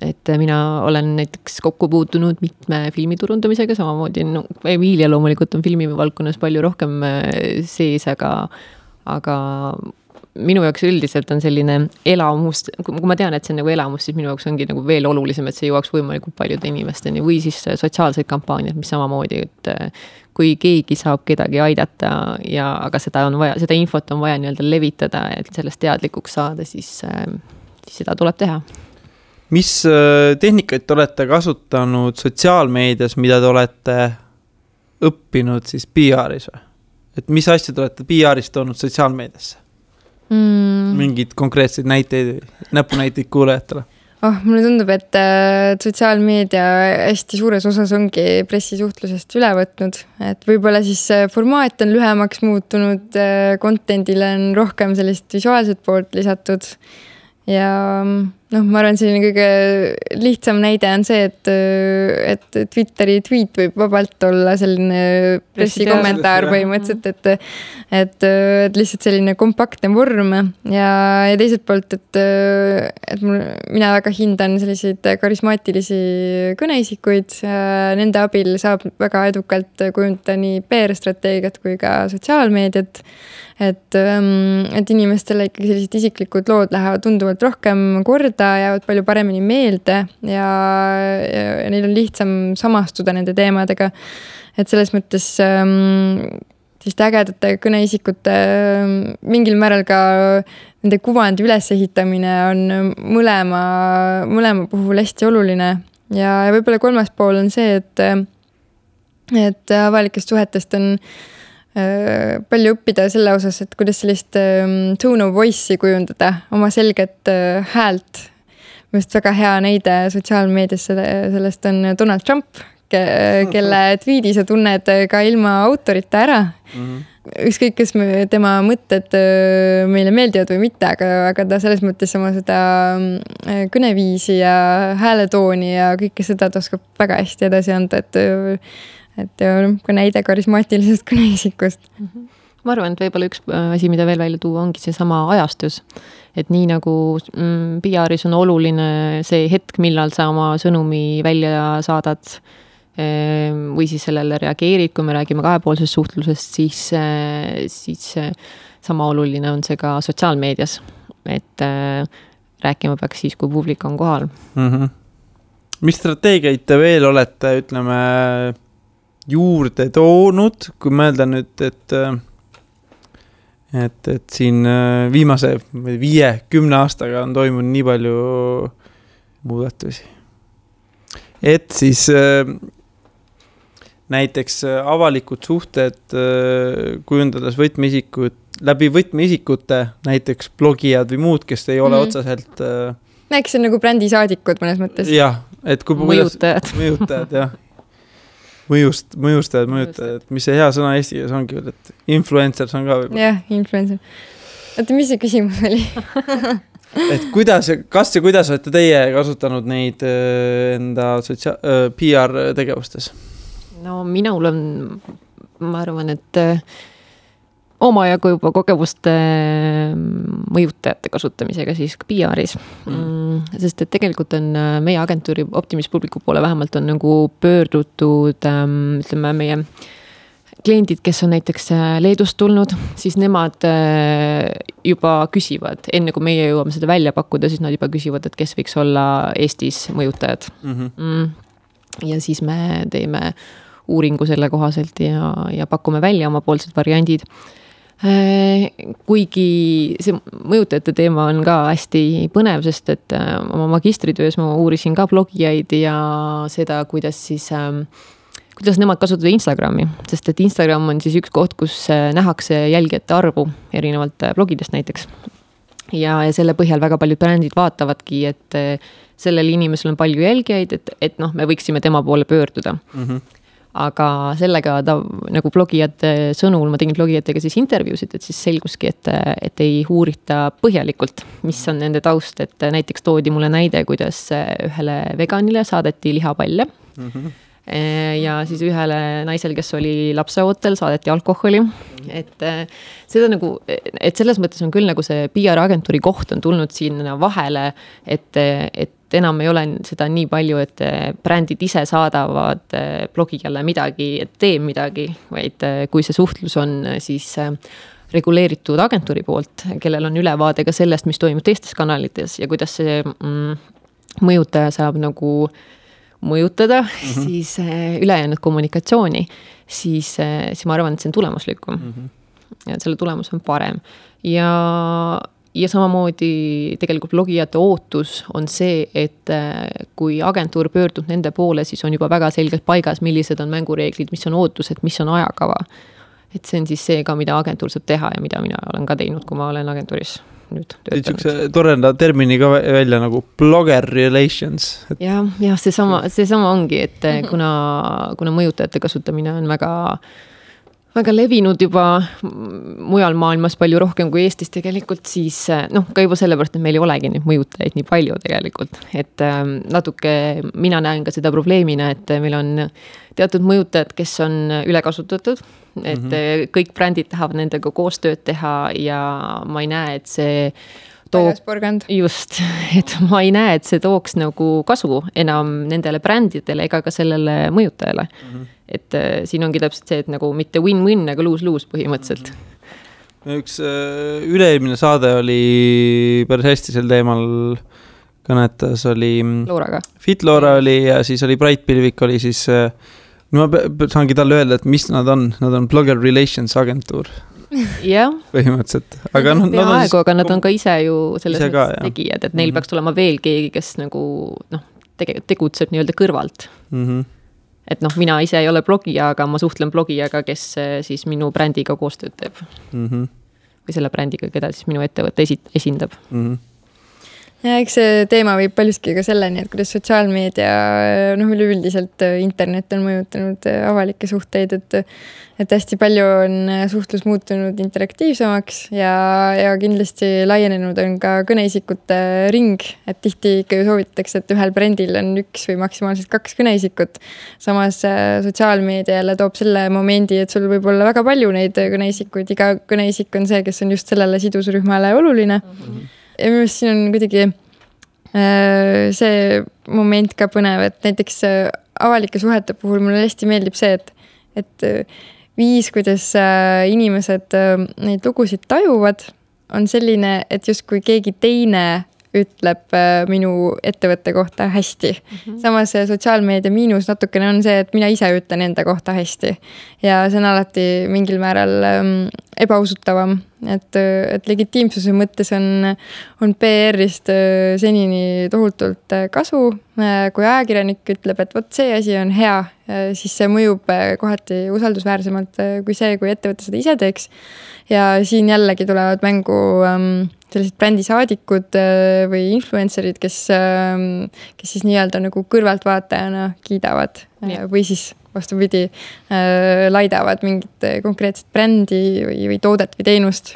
Et mina olen näiteks kokku puutunud mitme filmiturundamisega, samamoodi Emilia loomulikult on filmivaldkonnas palju rohkem sees, aga minu jaoks üldiselt on selline elamus, kui ma tean, et see on nagu elamus, siis minu jaoks ongi nagu veel olulisem, et see jõuaks võimalikult paljude inimesteni või siis sotsiaalseid kampaaniad, mis samamoodi, et kui keegi saab kedagi aidata aga seda infot on vaja nii-öelda levitada, et sellest teadlikuks saada, siis seda tuleb teha. Mis tehnikaid te olete kasutanud sotsiaalmeedias, mida te olete õppinud siis PR-is või? Et mis asju te olete PR-is toonud sotsiaalmeediasse? Mingid konkreetseid näiteid, näpunäiteid kuulajatele? Mulle tundub, et sotsiaalmeedia hästi suures osas ongi pressisuhtlusest üle võtnud, et võib-olla siis formaat on lühemaks muutunud, contentile on rohkem sellist visuaalset poolt lisatud ja ma arvan, selline kõige lihtsam näide on see, et Twitteri tweet võib vabalt olla selline pressikommentaar põhimõtteliselt, et lihtsalt selline kompaktne vorm ja teiselt poolt, et mina väga hindan selliseid karismaatilisi kõneisikuid, nende abil saab väga edukalt kujundada nii PR-strateegiat kui ka sotsiaalmeediat, et inimestele ikkagi sellised isiklikud lood lähevad tunduvalt rohkem korda, jäävad palju paremini meelde ja neil on lihtsam samastuda nende teemadega. Et selles mõttes siis ägedate kõneisikute mingil määral ka nende kuvandi ülesehitamine on mõlema puhul hästi oluline. Ja võib-olla kolmas pool on see, et avalikest suhetest on palju õppida selle osas, et kuidas sellist tone of voice'i kujundada, oma selget häält. Just väga hea näide sotsiaalmeedias sellest on Donald Trump, kelle tweedi sa tunned ka ilma autorita ära. Ükskõik, kas tema mõtted meile meeldivad või mitte, aga ta selles mõttes oma seda kõneviisi ja hääletooni ja kõike seda ta oskab väga hästi edasi anda, et ka näide karismaatilisest kõneisikust. Ma arvan, et võib-olla üks asi, mida veel välja tuua, ongi see sama ajastus. Et nii nagu PR-is on oluline see hetk, millal sa oma sõnumi välja saadad või siis sellele reageerid, kui me räägime kahepoolsest suhtlusest, siis sama oluline on see ka sotsiaalmeedias. Et rääkima peaks siis, kui publik on kohal. Mis strateegiaid te veel olete, ütleme, juurde toonud, kui mõelda nüüd, et siin viimase 5-10 aastaga on toimunud nii palju muudatusi? et siis näiteks avalikud suhted kujundades läbi võtmeisikute, näiteks blogijad või muud, kes ei ole otseselt eks see on nagu brändisaadikud mõnes mõttes. Jah, et kui mõjutajad, jah. Mõjustajad, mis see hea sõna eesti keeles ongi, et influencers on ka võib-olla. Jah, influencer. Oota, mis see küsimus oli? Et kuidas olete teie kasutanud neid enda PR tegevustes? No minul on, ma arvan, et omajagu juba kogemuste mõjutajate kasutamisega siis ka PR-is. Sest et tegelikult on meie agentuuri Optimis Publicu poole vähemalt on nagu pöördutud, ütleme meie kliendid, kes on näiteks Leedust tulnud, siis nemad juba küsivad, enne kui meie jõuame seda välja pakkuda, siis nad juba küsivad, et kes võiks olla Eestis mõjutajad. Ja siis me teeme uuringu selle kohaselt ja pakume välja omapoolsed variandid. Kuigi see mõjutajate teema on ka hästi põnev, sest et oma magistritöös ma uurisin ka blogijaid ja seda, kuidas nemad kasutavad Instagrami, sest et Instagram on siis üks koht, kus nähakse jälgijate arvu erinevalt blogidest näiteks. Ja selle põhjal väga paljud brändid vaatavadki, et sellel inimesel on palju jälgijaid, et me võiksime tema poole pöörduda. Aga sellega nagu blogijate sõnul, ma tegin blogijatega siis intervjuusid, et siis selguski, et ei uurita põhjalikult, mis on nende taust, et näiteks toodi mulle näide, kuidas ühele veganile saadeti lihapalle ja siis ühele naisel, kes oli lapseootel, saadeti alkoholi, et seda nagu, et selles mõttes on küll nagu see PR-agentuuri koht on tulnud sinna vahele, et enam ei ole seda nii palju, et brändid ise saadavad blogijale midagi, et tee midagi, vaid kui see suhtlus on siis reguleeritud agentuuri poolt, kellel on ülevaade ka sellest, mis toimub teistes kanalites ja kuidas see mõjutaja saab nagu mõjutada siis ülejäänud kommunikatsiooni, siis ma arvan, et see on tulemuslikum. Ja selle tulemus on parem. Ja samamoodi tegelikult blogijate ootus on see, et kui agentuur pöördub nende poole, siis on juba väga selgelt paigas, millised on mängureeglid, mis on ootused, mis on ajakava. Et see on siis see ka, mida agentuur saab teha ja mida mina olen ka teinud, kui ma olen agentuuris nüüd töötanud. See torenda termini ka välja nagu blogger relations. Ja see sama ongi, et kuna mõjutajate kasutamine on väga levinud juba mujal maailmas palju rohkem kui Eestis tegelikult, siis ka juba sellepärast, et meil ei olegi neid mõjutajaid nii palju tegelikult. Et natuke mina näen ka seda probleemina, et meil on teatud mõjutajad, kes on ülekasutatud, et kõik brändid tahavad nendega koostööd teha ja ma ei näe, et see just, et ma ei näe, et see tooks nagu kasu enam nendele brändidele ega ka sellele mõjutajale. Et siin ongi täpselt see, et nagu mitte win-win, aga lose-lose põhimõtteliselt. Üks üleilmine saade oli päris hästi sel teemal kõnetas, oli Looraga. Fit Loora oli ja siis oli Bright Pilvik oli siis, ma saangi talle öelda, et mis nad on Blogger Relations agentuur. Jah. Põhimõtteliselt. Aga nad on ka ise ju selles tegijad, et neil peaks tulema veel keegi, kes nagu tegutseb nii-öelda kõrvalt. Et mina ise ei ole blogija, aga ma suhtlen blogijaga, kes siis minu brändiga koostööd teeb. Või selle brändiga, keda siis minu ettevõtte esindab. Ja eks see teema võib paljuski ka selleni, et kuidas sotsiaalmeedia, üleüldiselt internet on mõjutanud avalikke suhteid, et hästi palju on suhtlus muutunud interaktiivsemaks ja kindlasti laienenud on ka kõneisikute ring, et tihti ikka ju soovitatakse, et ühel brändil on 1 või maksimaalselt 2 kõneisikut. Samas sotsiaalmeedia jälle toob selle momendi, et sul võib olla väga palju neid kõneisikuid, iga kõneisik on see, kes on just sellele sidusrühmale oluline. Ja minu meelest siin on kuidagi see moment ka põnev, et näiteks avalike suhete puhul mulle hästi meeldib see, et viis, kuidas inimesed neid lugusid tajuvad, on selline, et justkui keegi teine ütleb minu ettevõtte kohta hästi. Samas sotsiaalmeedia miinus natukene on see, et mina ise ütlen enda kohta hästi. Ja see on alati mingil määral ebausutavam. Et legitiimsuse mõttes on PR-ist senini tohutult kasu. Kui ajakirjanik ütleb, et vot see asi on hea, siis see mõjub kohati usaldusväärsemalt kui see, kui ettevõte seda ise teeks. Ja siin jällegi tulevad mängu sellised brändisaadikud või influencerid, kes siis nii-öelda nagu kõrvaltvaatajana kiidavad või siis vastupidi laidavad mingit konkreetset brändi või toodet või teenust.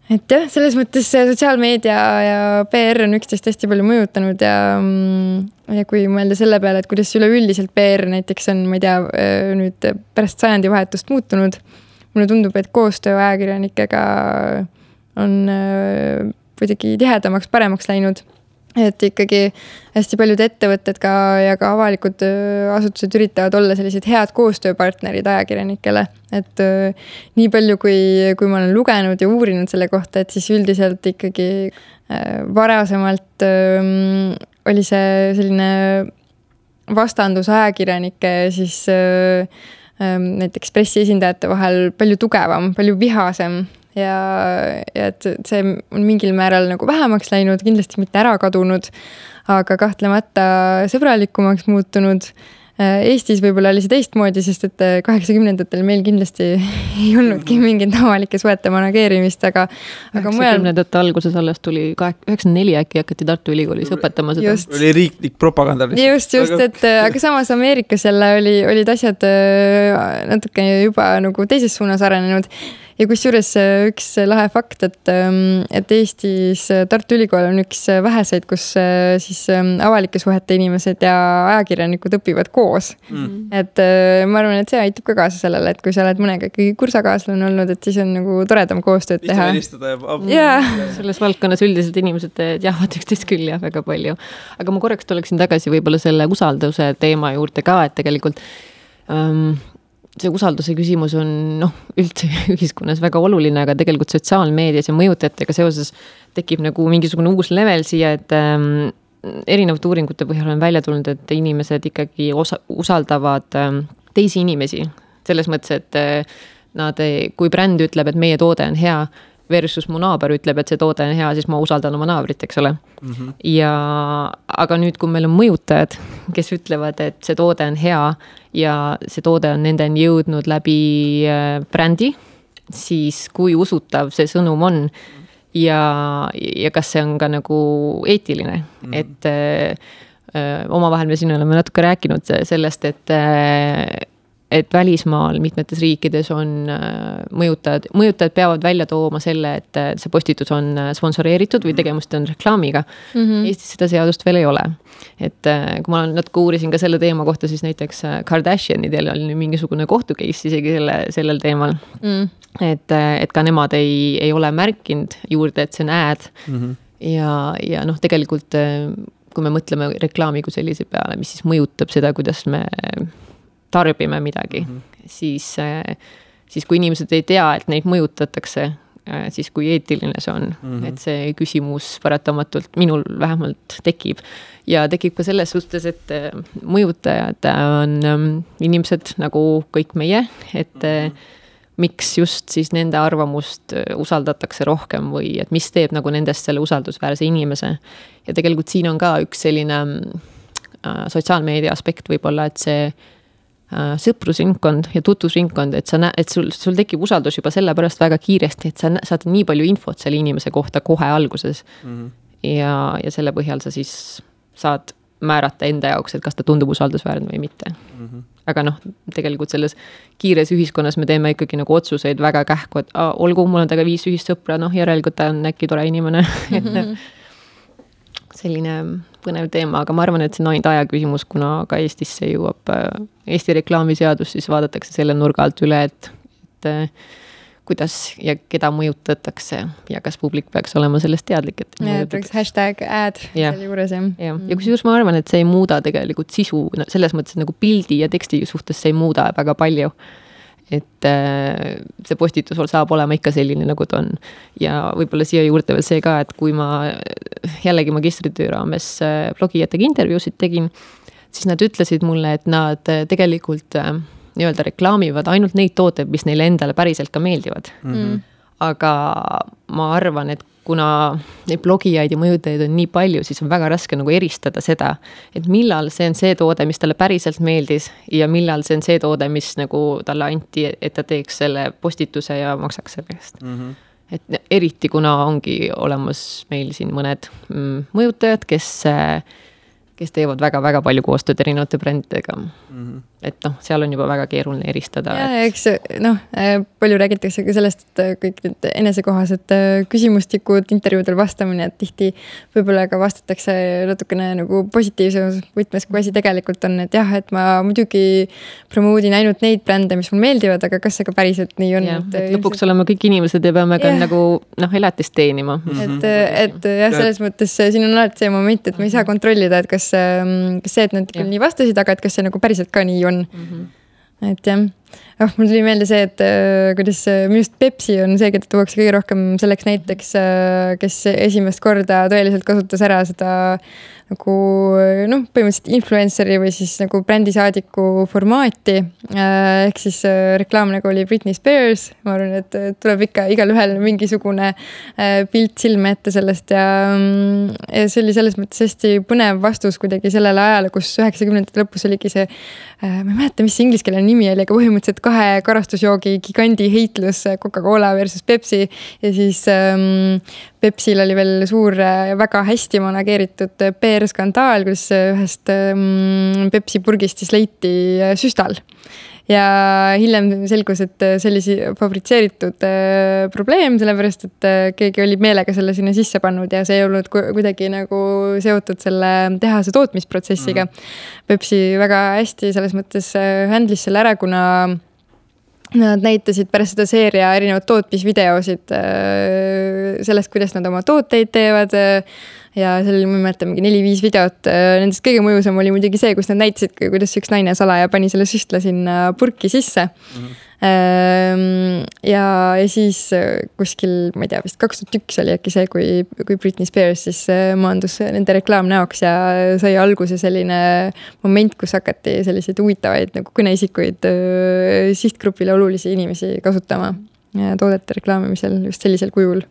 Et jah, selles mõttes sotsiaalmeedia ja PR on üksteist hästi palju mõjutanud ja kui mõelda selle peale, et kuidas üleüldiselt PR näiteks on, ma ei tea, nüüd pärast sajandivahetust muutunud, mulle tundub, et koostöö ajakirjanikega on kuidagi tihedamaks, paremaks läinud. Et ikkagi hästi paljud ettevõtted ja ka avalikud asutused üritavad olla sellised head koostööpartnerid ajakirjanikele. Et nii palju, kui ma olen lugenud ja uurinud selle kohta, et siis üldiselt ikkagi varasemalt oli see selline vastandus ajakirjanike siis näiteks pressiesindajate vahel palju tugevam, palju vihasem. Ja et see on mingil määral nagu vähemaks läinud, kindlasti mitte ära kadunud, aga kahtlemata sõbralikumaks muutunud. Eestis võib-olla oli see teistmoodi, sest et 80-ndatel meil kindlasti ei olnudki mingit avalike suhete manageerimist, aga 90-ndate alguses alles tuli 94 äkki hakati Tartu Ülikoolis õpetama seda. Oli riiklik propaganda. Just, et aga samas Ameerikas jälle olid asjad natuke juba nagu teises suunas arenenud. Ja kusjuures üks lahe fakt, et Eestis Tartu Ülikool on üks väheseid, kus siis avalike suhete inimesed ja ajakirjanikud õpivad koos. Et ma arvan, et see aitab ka kaasa sellele, et kui sa oled mõnega ikkagi kursakaaslane olnud, et siis on nagu toredam koostööd teha. Selles valdkonnas üldiselt inimesed teavad üksteist küll ja väga palju. Aga ma korraks tuleksin tagasi võib-olla selle usalduse teema juurde ka, et tegelikult see usalduse küsimus on üldse ühiskonnas väga oluline, aga tegelikult sotsiaalmeedias ja mõjutajatega seoses tekib nagu mingisugune uus level siia, et erinevate uuringute põhjal on välja tulnud, et inimesed ikkagi usaldavad teisi inimesi. Selles mõttes, et kui bränd ütleb, et meie toode on hea, versus mu naaber ütleb, et see toode on hea, siis ma usaldan oma naabrit, eks ole. Aga nüüd, kui meil on mõjutajad, kes ütlevad, et see toode on hea ja see toode on nendeni jõudnud läbi brändi, siis kui usutav see sõnum on ja kas see on ka nagu eetiline. Et omavahel me siin oleme natuke rääkinud sellest, et välismaal mitmetes riikides on mõjutajad peavad välja tooma selle, et see postitus on sponsoreeritud või tegemist on reklaamiga. Eestis seda seadust veel ei ole. Et kui ma natuke uurisin ka selle teema kohta, siis näiteks Kardashianidel oli mingisugune kohtukeis isegi sellel teemal. Et ka nemad ei ole märkinud juurde, et see on ad. Ja tegelikult, kui me mõtleme reklaami kui sellise peale, mis siis mõjutab seda, kuidas me tarbime midagi, siis kui inimesed ei tea, et neid mõjutatakse, siis kui eetiline see on, et see küsimus paratamatult minul vähemalt tekib. Ja tekib ka selles suhtes, et mõjutajad on inimesed nagu kõik meie, et miks just siis nende arvamust usaldatakse rohkem või et mis teeb nagu nendest selle usaldusväärse inimese. Ja tegelikult siin on ka üks selline sotsiaalmeedia aspekt võib-olla, et see sõprusringkond ja tutvusringkond, et sul tekib usaldus juba selle pärast väga kiiresti, et sa saad nii palju infot selle inimese kohta kohe alguses. Ja selle põhjal sa siis saad määrata enda jaoks, et kas ta tundub usaldusväärne või mitte. Aga tegelikult selles kiires ühiskonnas me teeme ikkagi nagu otsuseid väga kähku, et olgu, mul on taga 5 ühist sõpra, järelikult ta on äkki tore inimene. Selline põnev teema, aga ma arvan, et see on ainult aja küsimus, kuna ka Eestisse jõuab Eesti reklaamiseadus, siis vaadatakse selle nurga alt üle, et kuidas ja keda mõjutatakse ja kas publik peaks olema sellest teadlik. Peaks #ad seal juures. Ja kusjuures ma arvan, et see ei muuda tegelikult sisu, selles mõttes nagu pildi ja teksti suhtes see ei muuda väga palju. et see postitus saab olema ikka selline, nagu ta on. Ja võib-olla siia juurde veel see ka, et kui ma jällegi magistritöö raames blogijatega intervjuusid tegin, siis nad ütlesid mulle, et nad tegelikult nii-öelda reklaamivad ainult neid tooteid, mis neile endale päriselt ka meeldivad. Aga ma arvan, et kuna neid blogijaid ja mõjutajaid on nii palju, siis on väga raske nagu eristada seda, et millal see on see toode, mis talle päriselt meeldis ja millal see on see toode, mis nagu talle anti, et ta teeks selle postituse ja maksaks selle eest. Et eriti kuna ongi olemas meil siin mõned mõjutajad, kes teevad väga-väga palju koostööd erinevate brändidega. Et seal on juba väga keeruline eristada. Ja eks palju räägitakse ka sellest, et kõik need enesekohased küsimustikud, intervjuudel vastamine, et tihti võib-olla ka vastatakse natukene nagu positiivses võtmes, kui asi tegelikult on, et jah, et ma muidugi promoodin ainult neid brände, mis mul meeldivad, aga kas see ka päriselt nii on? Ja, et lõpuks oleme kõik inimesed ja peame ka nagu elatist teenima. Et jah, selles mõttes siin on alati see moment, et me ei saa kontrollida, et kas see, et nad nii vastasid, aga et kas see nagu päriselt ka nii on. Et jah, mul tuli meelde see, et kuidas minu just Pepsi on see, keda tuuakse kõige rohkem selleks näiteks, kes esimest korda tõeliselt kasutas ära seda nagu põhimõtteliselt influenceri või siis nagu brändisaadiku formaati. Ehk siis reklaam nagu oli Britney Spears. Ma arvan, et tuleb ikka igal ühel mingisugune pilt silme ette sellest ja see oli selles mõttes hästi põnev vastus kuidagi sellele ajale, kus 90-ndate lõpus oligi see, ma ei mäleta, mis see ingliskeelne nimi oli, aga põhimõtteliselt 2 karastusjoogi gigandi heitlus Coca-Cola versus Pepsi ja siis Pepsil oli veel suur väga hästi manageeritud PR-skandaal, kus ühest Pepsi purgist siis leiti süstal. Ja hiljem selgus, et see oli fabritseeritud probleem, sellepärast, et keegi oli meelega selle sinna sisse pannud ja see ei olnud kuidagi nagu seotud selle tehase tootmisprotsessiga. Pepsi väga hästi selles mõttes handlis selle ära, kuna nad näitasid pärast seda seeria erinevad tootmisvideosid sellest, kuidas nad oma tooteid teevad ja seal oli, ma mäletan, mingi 4-5 videot. Nendest kõige mõjusam oli muidugi see, kus nad näitasid, kuidas üks naine salaja pani selle süstla sinna purki sisse. Ja siis kuskil, ma ei tea, vist 2001 oli äkki see, kui Britney Spears siis maandus nende reklaamnäoks ja sai alguse selline moment, kus hakati selliseid huvitavaid nagu kõneisikuid sihtgrupile olulisi inimesi kasutama toodete reklaamimisel just sellisel kujul.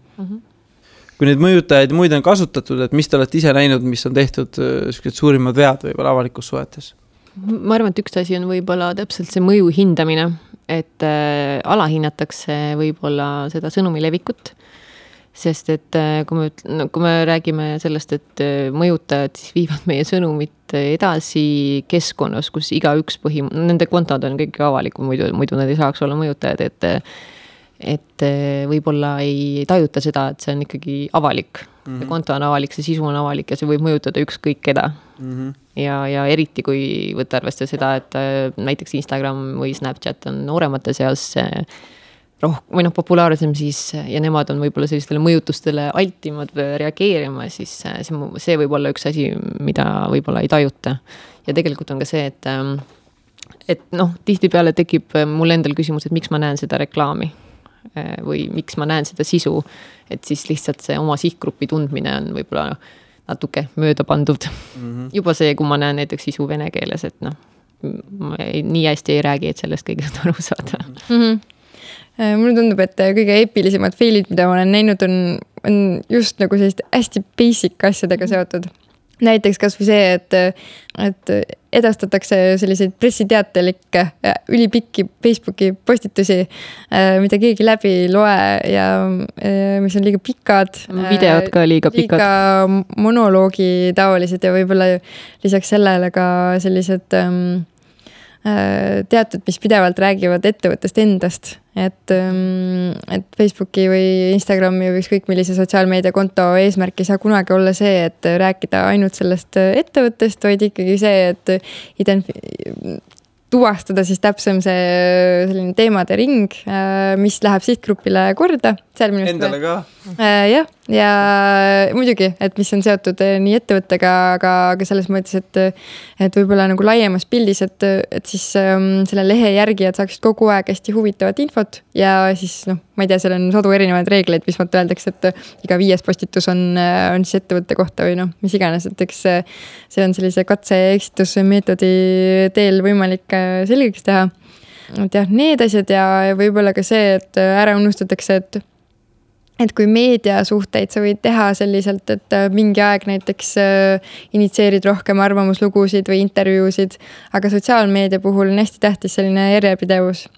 Kui neid mõjutajaid muid on kasutatud, et mis te olete ise näinud, mis on tehtud suurimad vead võib-olla avalikus suhetes? Ma arvan, et üks asi on võib-olla täpselt see mõju hindamine, et alahinnatakse võib-olla seda sõnumi levikut, sest et kui me räägime sellest, et mõjutajad siis viivad meie sõnumit edasi keskkonnas, kus igaüks nende kontod on kõik avalikud, muidu nad ei saaks olla mõjutajad, et võib-olla ei tajuta seda, et see on ikkagi avalik. See konto on avalik, see sisu on avalik ja see võib mõjutada ükskõik keda. Ja eriti, kui võtta arvestada seda, et näiteks Instagram või Snapchat on nooremate seas või populaarsem siis ja nemad on võib-olla sellistele mõjutustele altimad reageerima, siis see võib olla üks asi, mida võib-olla ei tajuta. Ja tegelikult on ka see, et tihtipeale tekib mul endal küsimus, et miks ma näen seda reklaami või miks ma näen seda sisu, et siis lihtsalt see oma sihtgrupi tundmine on võib-olla natuke mööda pandud. Juba see, kui ma näen näiteks sisu vene keeles, et ma nii hästi ei räägi, et sellest kõigest aru saada. Mulle tundub, et kõige eepilisemad failid, mida ma olen näinud, on just nagu sellist hästi basic asjadega seotud. Näiteks kas või see, et edastatakse selliseid pressiteatelikke ülipikki Facebooki postitusi, mida keegi läbi loe ja mis on liiga pikad. Videod ka liiga pikad. Liiga monoloogi taolised ja võib-olla lisaks sellele ka sellised teatud, mis pidevalt räägivad ettevõttest endast, et Facebooki või Instagrami või ükskõik millise sotsiaalmeediakonto eesmärk ei saa kunagi olla see, et rääkida ainult sellest ettevõttest, vaid ikkagi see, et tuvastada siis täpsem see selline teemade ring, mis läheb sihtgrupile korda. Endale ka? Jah, ja muidugi, et mis on seotud nii ettevõttega, aga selles mõttes, et võib-olla nagu laiemas pildis, et siis selle lehe järgijad saaksid kogu aeg hästi huvitavat infot ja siis ma ei tea, seal on sadu erinevaid reegleid, mis mõtta öeldakse, et iga 5. postitus on siis ettevõtte kohta või mis iganes, et eks see on sellise katse-eksitusmeetodi teel võimalik selgeks teha. Et jah, need asjad ja võib-olla ka see, et ära unustatakse, et kui meediasuhteid sa võid teha selliselt, et mingi aeg näiteks initsieerid rohkem arvamuslugusid või intervjuusid, aga sotsiaalmeedia puhul on hästi tähtis selline järjepidevus.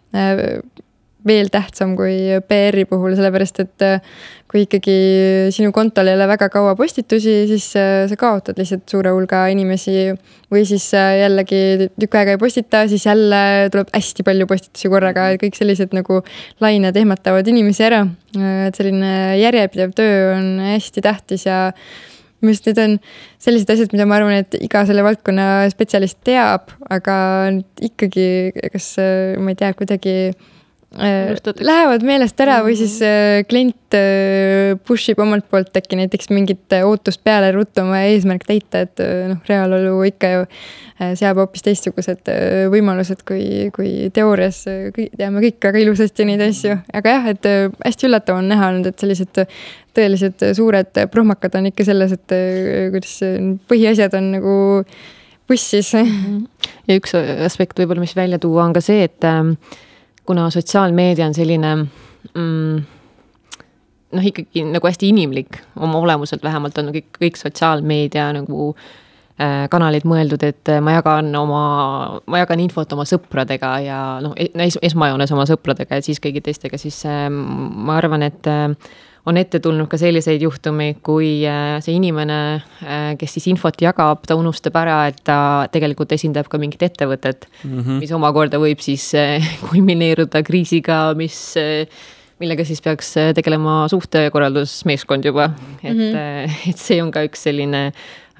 Veel tähtsam kui PR-i puhul, sellepärast et kui ikkagi sinu kontol ei ole väga kaua postitusi, siis sa kaotad lihtsalt suure hulga inimesi või siis jällegi tükk aega ei postita, siis jälle tuleb hästi palju postitusi korraga, kõik sellised nagu lained ehmatavad inimesi ära. Et selline järjepidev töö on hästi tähtis ja mis need on sellised asjad, mida ma arvan, et iga selle valdkonna spetsialist teab, aga ikkagi, kas ma ei tea, kuidagi lähevad meelest ära või siis klient pushib omalt poolt äkki näiteks mingit ootust peale ruttu oma eesmärk täita, et reaalolu ikka ju seab hoopis teistsugused võimalused kui teoorias teame kõik väga ilusasti neid asju, aga jah, et hästi üllatav on näha olnud, et sellised tõelised suured prohmakad on ikka selles, et kuidas põhiasjad on nagu bussis. Ja üks aspekt võib-olla, mis välja tuua on ka see, et kuna sotsiaalmeedia on selline ikkagi nagu hästi inimlik oma olemuselt, vähemalt on kõik sotsiaalmeedia nagu kanalid mõeldud, et ma jagan infot oma sõpradega ja esmajoones oma sõpradega ja siis kõigi teistega, siis ma arvan, et on ette tulnud ka selliseid juhtumeid, kui see inimene, kes siis infot jagab, ta unustab ära, et ta tegelikult esindab ka mingit ettevõtet, mis omakorda võib siis kulmineeruda kriisiga, millega siis peaks tegelema suhtekorraldusmeeskond juba. Et see on ka üks selline,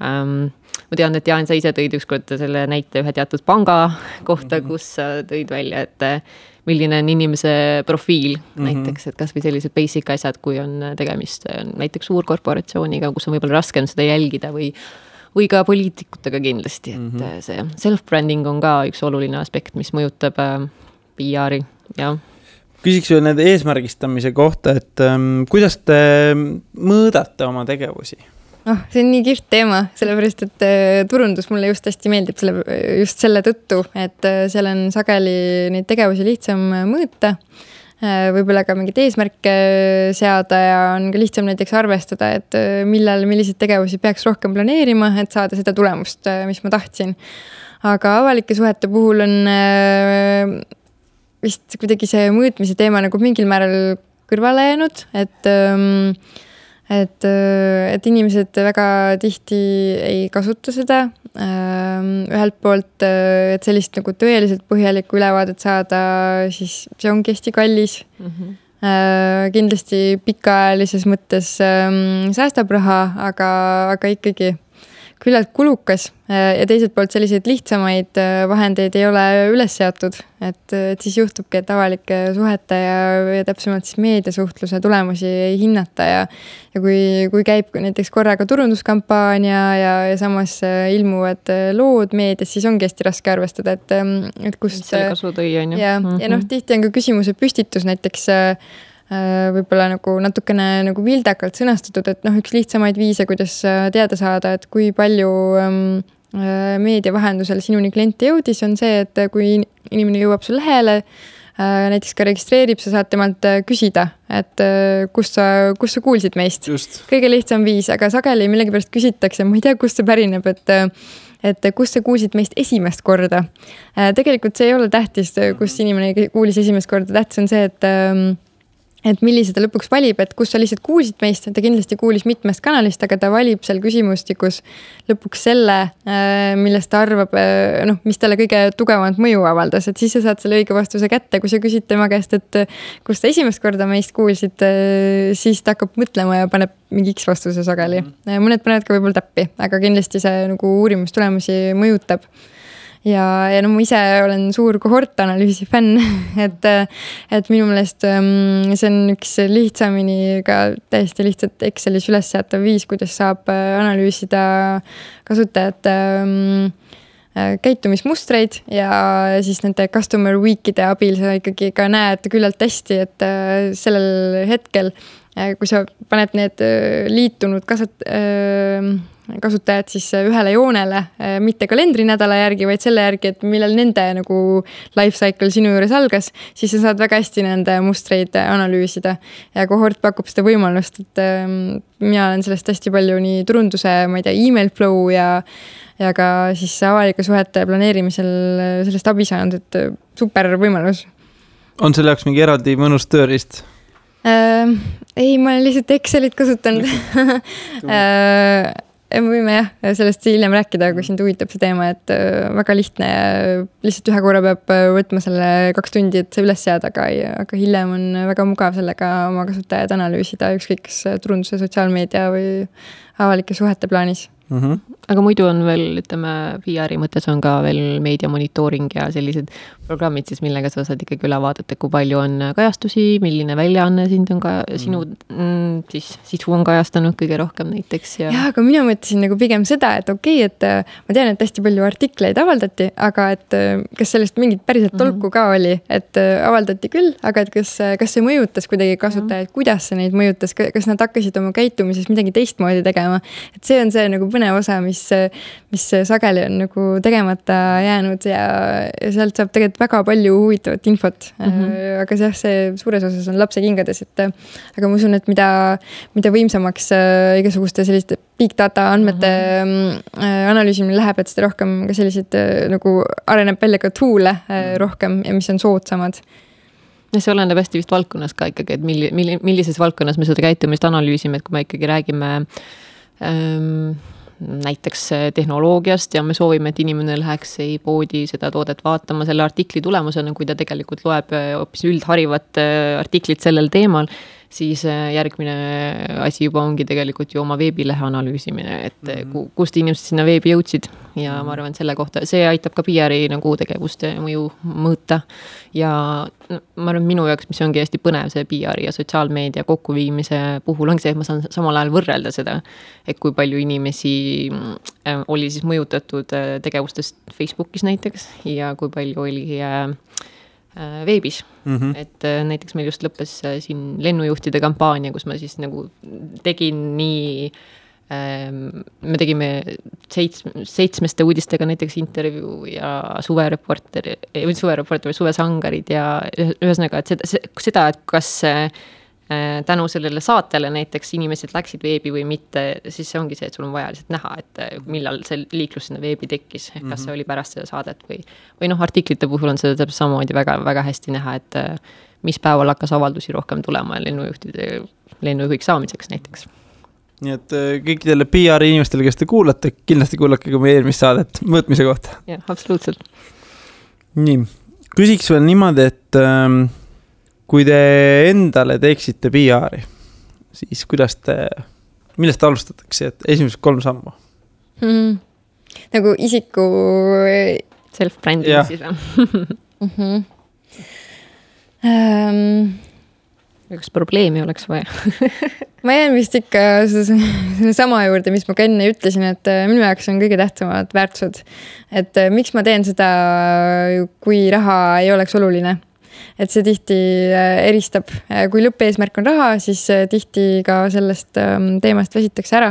ma tean, et Jaan, sa ise tõid ükskord selle näite ühe teatud panga kohta, kus sa tõid välja, et milline on inimese profiil näiteks, et kas või sellised basic asjad, kui on tegemist näiteks suurkorporatsiooniga, kus on võib-olla raskem seda jälgida või ka poliitikutega kindlasti, et see self-branding on ka üks oluline aspekt, mis mõjutab PR-i, jah. Küsiks veel nende eesmärgistamise kohta, et kuidas te mõõdate oma tegevusi? See on nii kihvt teema, sellepärast, et turundus mulle just hästi meeldib just selle tõttu, et seal on sageli neid tegevusi lihtsam mõõta, võib-olla ka mingit eesmärke seada ja on ka lihtsam näiteks arvestada, et milliseid tegevusi peaks rohkem planeerima, et saada seda tulemust, mis ma tahtsin. Aga avalike suhete puhul on vist kuidagi see mõõtmise teema nagu mingil määral kõrvale jäänud, et inimesed väga tihti ei kasuta seda. Ühelt poolt, et sellist nagu tõeliselt põhjalikku ülevaadet saada, siis see ongi hästi kallis. Kindlasti pikaajalises mõttes säästab raha, aga ikkagi küllalt kulukas ja teiselt poolt selliseid lihtsamaid vahendeid ei ole üles seatud, et siis juhtubki, et avalike suhete ja täpsemalt siis meediasuhtluse tulemusi ei hinnata ja kui käib näiteks korraga turunduskampaania ja samas ilmuvad lood meedias, siis ongi hästi raske arvestada, et kust selle kasu tõi, on ju. Ja tihti on ka küsimuse püstitus näiteks võib-olla nagu natukene nagu vildakalt sõnastatud, et üks lihtsamaid viise, kuidas teada saada, et kui palju meedia vahendusel sinuni klienti jõudis, on see, et kui inimene jõuab sul lehele, näiteks ka registreerib, sa saad temalt küsida, et kus sa kuulsid meist. Just. Kõige lihtsam viis, aga sageli millegipärast küsitakse, ma ei tea, kust see pärineb, et kus sa kuulsid meist esimest korda. Tegelikult see ei ole tähtis, kus inimene kuulis esimest korda. Tähtis on see, et millise ta lõpuks valib, et kus sa lihtsalt kuulsid meist, ta kindlasti kuulis mitmest kanalist, aga ta valib seal küsimustikus lõpuks selle, millest ta arvab, mis talle kõige tugevamat mõju avaldas, et siis sa saad selle õige vastuse kätte, kui sa küsid tema käest, et kus ta esimest korda meist kuulsid, siis ta hakkab mõtlema ja paneb mingi X vastuse sageli. Mõned panevad ka võib-olla täppi, aga kindlasti see nagu uurimustulemusi mõjutab. ja no ma ise olen suur kohortanalüüsi fänn, et minu meelest see on üks lihtsamini ka täiesti lihtsalt Excelis üles seatav viis, kuidas saab analüüsida kasutajate käitumismustreid ja siis nende customer week'ide abil sa ikkagi ka näed küllalt hästi, et sellel hetkel, kui sa paned need liitunud kasutajad siis ühele joonele, mitte kalendrinädala järgi, vaid selle järgi, et millal nende nagu life cycle sinu juures algas, siis sa saad väga hästi nende mustreid analüüsida. Ja kohort pakub seda võimalust, et mina olen sellest hästi palju nii turunduse, ma ei tea, email flow ja ka siis avalike suhete planeerimisel sellest abi saanud, et super võimalus. On selle jaoks mingi eraldi mõnus tööriist? Ei, ma olen lihtsalt Excelit kasutanud. Me võime sellest hiljem rääkida, kui sind huvitab see teema, et väga lihtne ja lihtsalt ühe korra peab võtma selle 2 tundi, et see üles seada, aga hiljem on väga mugav sellega oma kasutajad analüüsida, ükskõik kas turunduse, sotsiaalmeedia või avalike suhete plaanis. Aga muidu on veel, ütleme, PR-i mõttes on ka veel meedia monitooring ja sellised programmid siis, millega sa saad ikkagi üle vaadata, kui palju on kajastusi, milline väljaanne sind on ka, sinu siis sisu on kajastanud kõige rohkem näiteks. Ja, aga mina mõtlesin nagu pigem seda, et okei, et ma tean, et hästi palju artikleid avaldati, aga et kas sellest mingit päriselt tolku ka oli, et avaldati küll, aga et kas see mõjutas kuidagi kasutajaid, kuidas see neid mõjutas, kas nad hakkasid oma käitumises midagi teistmoodi tegema, et see on see nagu põnev osa, mis sageli on nagu tegemata jäänud ja sealt saab tegelikult väga palju huvitavat infot. Aga see suures osas on lapse kingades, et aga ma usun, et mida võimsamaks igasuguste selliste big data andmete analüüsimine läheb, et seda rohkem ka sellised nagu areneb välja ka tool'e rohkem ja mis on soodsamad. Ja see oleneb hästi vist valdkonnas ka ikkagi, et millises valdkonnas me seda käitumist analüüsime, et kui me ikkagi räägime näiteks tehnoloogiast ja me soovime, et inimene läheks poodi seda toodet vaatama selle artikli tulemusena, kui ta tegelikult loeb hoopis üldharivat artiklit sellel teemal, siis järgmine asi juba ongi tegelikult ju oma veebilehe analüüsimine, et kust inimesed sinna veebi jõudsid ja ma arvan, selle kohta, see aitab ka PR-i nagu tegevuste mõju mõõta ja ma arvan, minu jaoks, mis ongi hästi põnev see PR-i ja sotsiaalmeedia kokkuviimise puhul ongi see, et ma saan samal ajal võrrelda seda, et kui palju inimesi oli siis mõjutatud tegevustest Facebookis näiteks ja kui palju oli veebis. Et näiteks meil just lõppes siin lennujuhtide kampaania, kus ma siis nagu tegin nii, me tegime 7 uudistega näiteks intervjuu ja suvereporter või suvesangarid ja ühesõnaga, et seda, et kas tänu sellele saatele näiteks inimesed läksid veebi või mitte, siis see ongi see, et sul on vaja lihtsalt näha, et millal see liiklus sinna veebi tekkis, kas see oli pärast seda saadet või artiklite puhul on seda täpselt samamoodi väga, väga hästi näha, et mis päeval hakkas avaldusi rohkem tulema lennujuhiks saamiseks näiteks. Nii et kõikidele PR inimestele, kes te kuulate, kindlasti kuulake ka meie eelmist saadet mõõtmise kohta. Jah, absoluutselt. Nii, küsiks veel niimoodi, et kui te endale teeksite PR-i, siis millest alustatakse, et esimesed 3 sammu? Nagu isiku self-branding siis või? Kas probleemi oleks vaja? Ma jään vist ikka sama juurde, mis ma ka enne ütlesin, et minu jaoks on kõige tähtsamad väärtused. Et miks ma teen seda, kui raha ei oleks oluline? Et see tihti eristab, kui lõppeesmärk on raha, siis tihti ka sellest teemast väsitakse ära.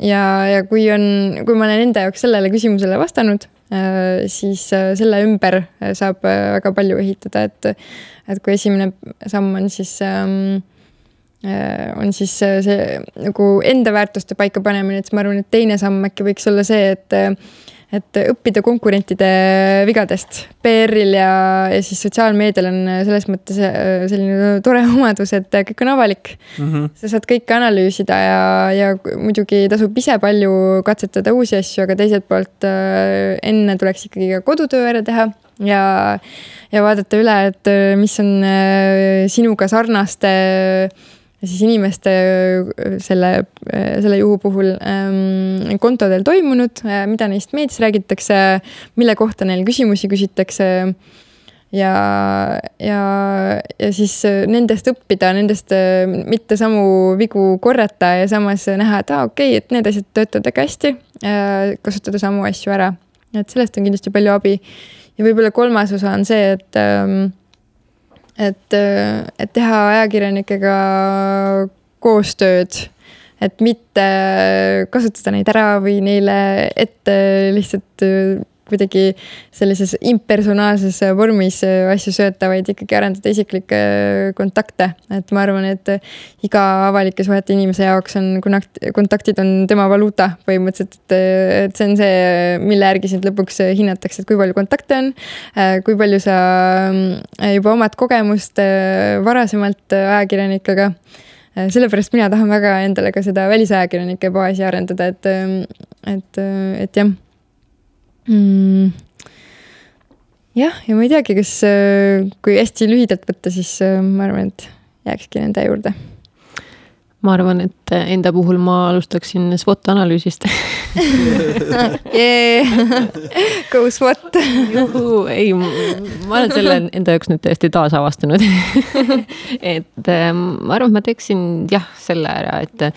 Ja kui ma olen enda jaoks sellele küsimusele vastanud, siis selle ümber saab väga palju ehitada, et kui esimene samm on siis see nagu enda väärtuste paika panemine, et ma arvan, et teine samm äkki võiks olla see, et õppida konkurentide vigadest. PR-il ja siis sotsiaalmeedial on selles mõttes selline tore omadus, et kõik on avalik. Sa saad kõike analüüsida ja muidugi tasub ise palju katsetada uusi asju, aga teiselt poolt enne tuleks ikkagi ka kodutöö ära teha ja vaadata üle, et mis on sinuga sarnaste siis inimeste selle juhu puhul kontodel toimunud, mida neist meedias räägitakse, mille kohta neil küsimusi küsitakse ja siis nendest õppida, nendest mitte samu vigu korrata ja samas näha, et okei, et need asjad töötavad väga hästi, kasutada samu asju ära. Et sellest on kindlasti palju abi. Ja võib-olla kolmas osa on see, et teha ajakirjanikega koostööd, et mitte kasutada neid ära või neile ette lihtsalt kuidagi sellises impersonaalses vormis asju sööta, vaid ikkagi arendada isiklikke kontakte. Et ma arvan, et iga avalike suhete inimese jaoks on kontaktid on tema valuuta põhimõtteliselt, et see on see, mille järgi sind lõpuks hinnatakse, et kui palju kontakte on, kui palju sa juba omad kogemust varasemalt ajakirjanikega. Sellepärast mina tahan väga endale ka seda välisajakirjanike baasi arendada, et jah. Jah, ja ma ei teagi, kas kui hästi lühidalt võtta, siis ma arvan, et jääkski nende juurde. Ma arvan, et enda puhul ma alustaksin SWOT-analüüsist. Go SWOT! Juhu, ei, ma olen selle enda jaoks nüüd täiesti taasavastanud. Et ma arvan, et ma teeksin selle ära, et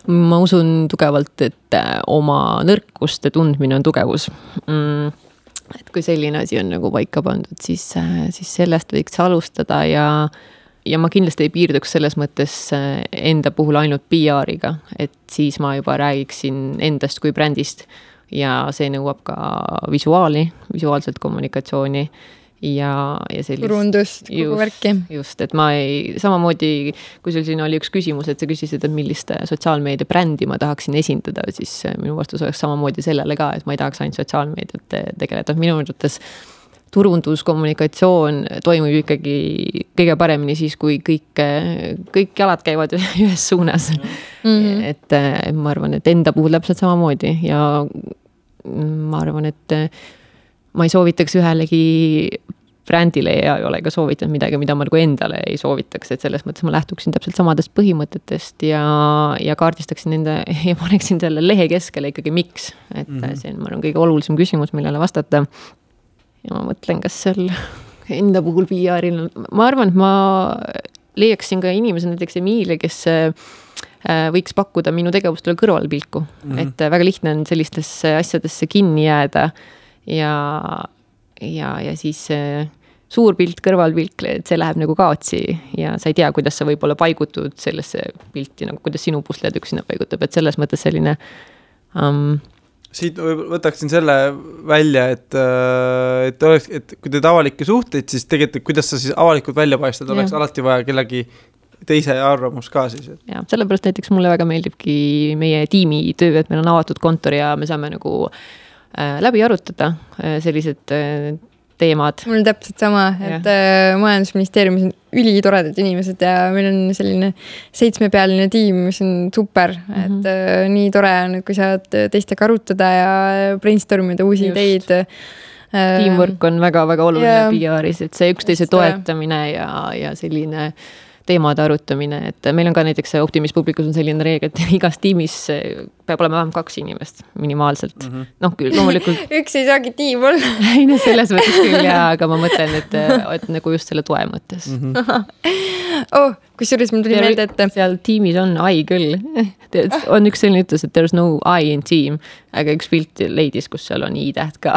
ma usun tugevalt, et oma nõrkuste tundmine on tugevus. Et kui selline asi on nagu paika pandud, siis sellest võiks alustada ja ma kindlasti ei piirduks selles mõttes enda puhul ainult PR-iga, et siis ma juba räägiksin endast kui brändist ja see nõuab ka visuaalselt kommunikatsiooni ja sellist turundust, kogu värki. Just, et ma samamoodi, kui sul siin oli üks küsimus, et sa küsisid, et millist sotsiaalmeedia brändi ma tahaksin esindada, siis minu vastus oleks samamoodi sellele ka, et ma ei tahaks ainult sotsiaalmeediat tegeleda. Minu mõttes turunduskommunikatsioon toimub ikkagi kõige paremini siis, kui kõik jalad käivad ühes suunas. Et ma arvan, et enda puhul täpselt samamoodi ja ma arvan, et ma ei soovitaks ühelegi brändile ja ei ole ka soovitanud midagi, mida ma nagu endale ei soovitaks, et selles mõttes ma lähtuksin täpselt samadest põhimõtetest ja kaardistaksin nende ja paneksin selle lehe keskele ikkagi miks. Et see on, ma arvan, kõige olulisem küsimus, millele vastata. Ja ma mõtlen, kas seal enda puhul PR-il, ma arvan, et ma leiaksin ka inimese, näiteks Emilia, kes võiks pakkuda minu tegevustele kõrvalpilku. Et väga lihtne on sellistesse asjadesse kinni jääda ja siis suur pilt, kõrvalpilk, et see läheb nagu kaotsi ja sa ei tea, kuidas sa võib-olla paigutud sellesse pilti, nagu kuidas sinu pusled üks sinna paigutab, et selles mõttes selline siit võtaksin selle välja, et kui teed avalikke suhteid, siis tegelikult kuidas sa siis avalikult välja paistad, oleks alati vaja kellegi teise arvamus ka siis. Ja, sellepärast näiteks mulle väga meeldibki meie tiimi töö, et meil on avatud kontor ja me saame nagu läbi arutada sellised teemad. Mul on täpselt sama, et majandusministeeriumis on ülitoredad inimesed ja meil on selline 7-pealine tiim, mis on super, et nii tore on, kui saad teistega arutada ja brainstormida uusi ideid. Teamwork on väga-väga oluline PR-is, et see üksteise toetamine ja selline teemade arutamine, et meil on ka näiteks Optimis publikus on selline reegel, et igas tiimis peab olema vähem 2 inimest minimaalselt. Noh, küll loomulikult. Üks ei saagi tiim olla. Ei, no selles mõttes küll, aga ma mõtlen, et nagu just selle toe mõttes. Kusjuures mul tuli meelde, et seal tiimis on I küll. On üks selline ütlus, et there's no I in team, aga üks pilt leidis, kus seal on I-täht ka.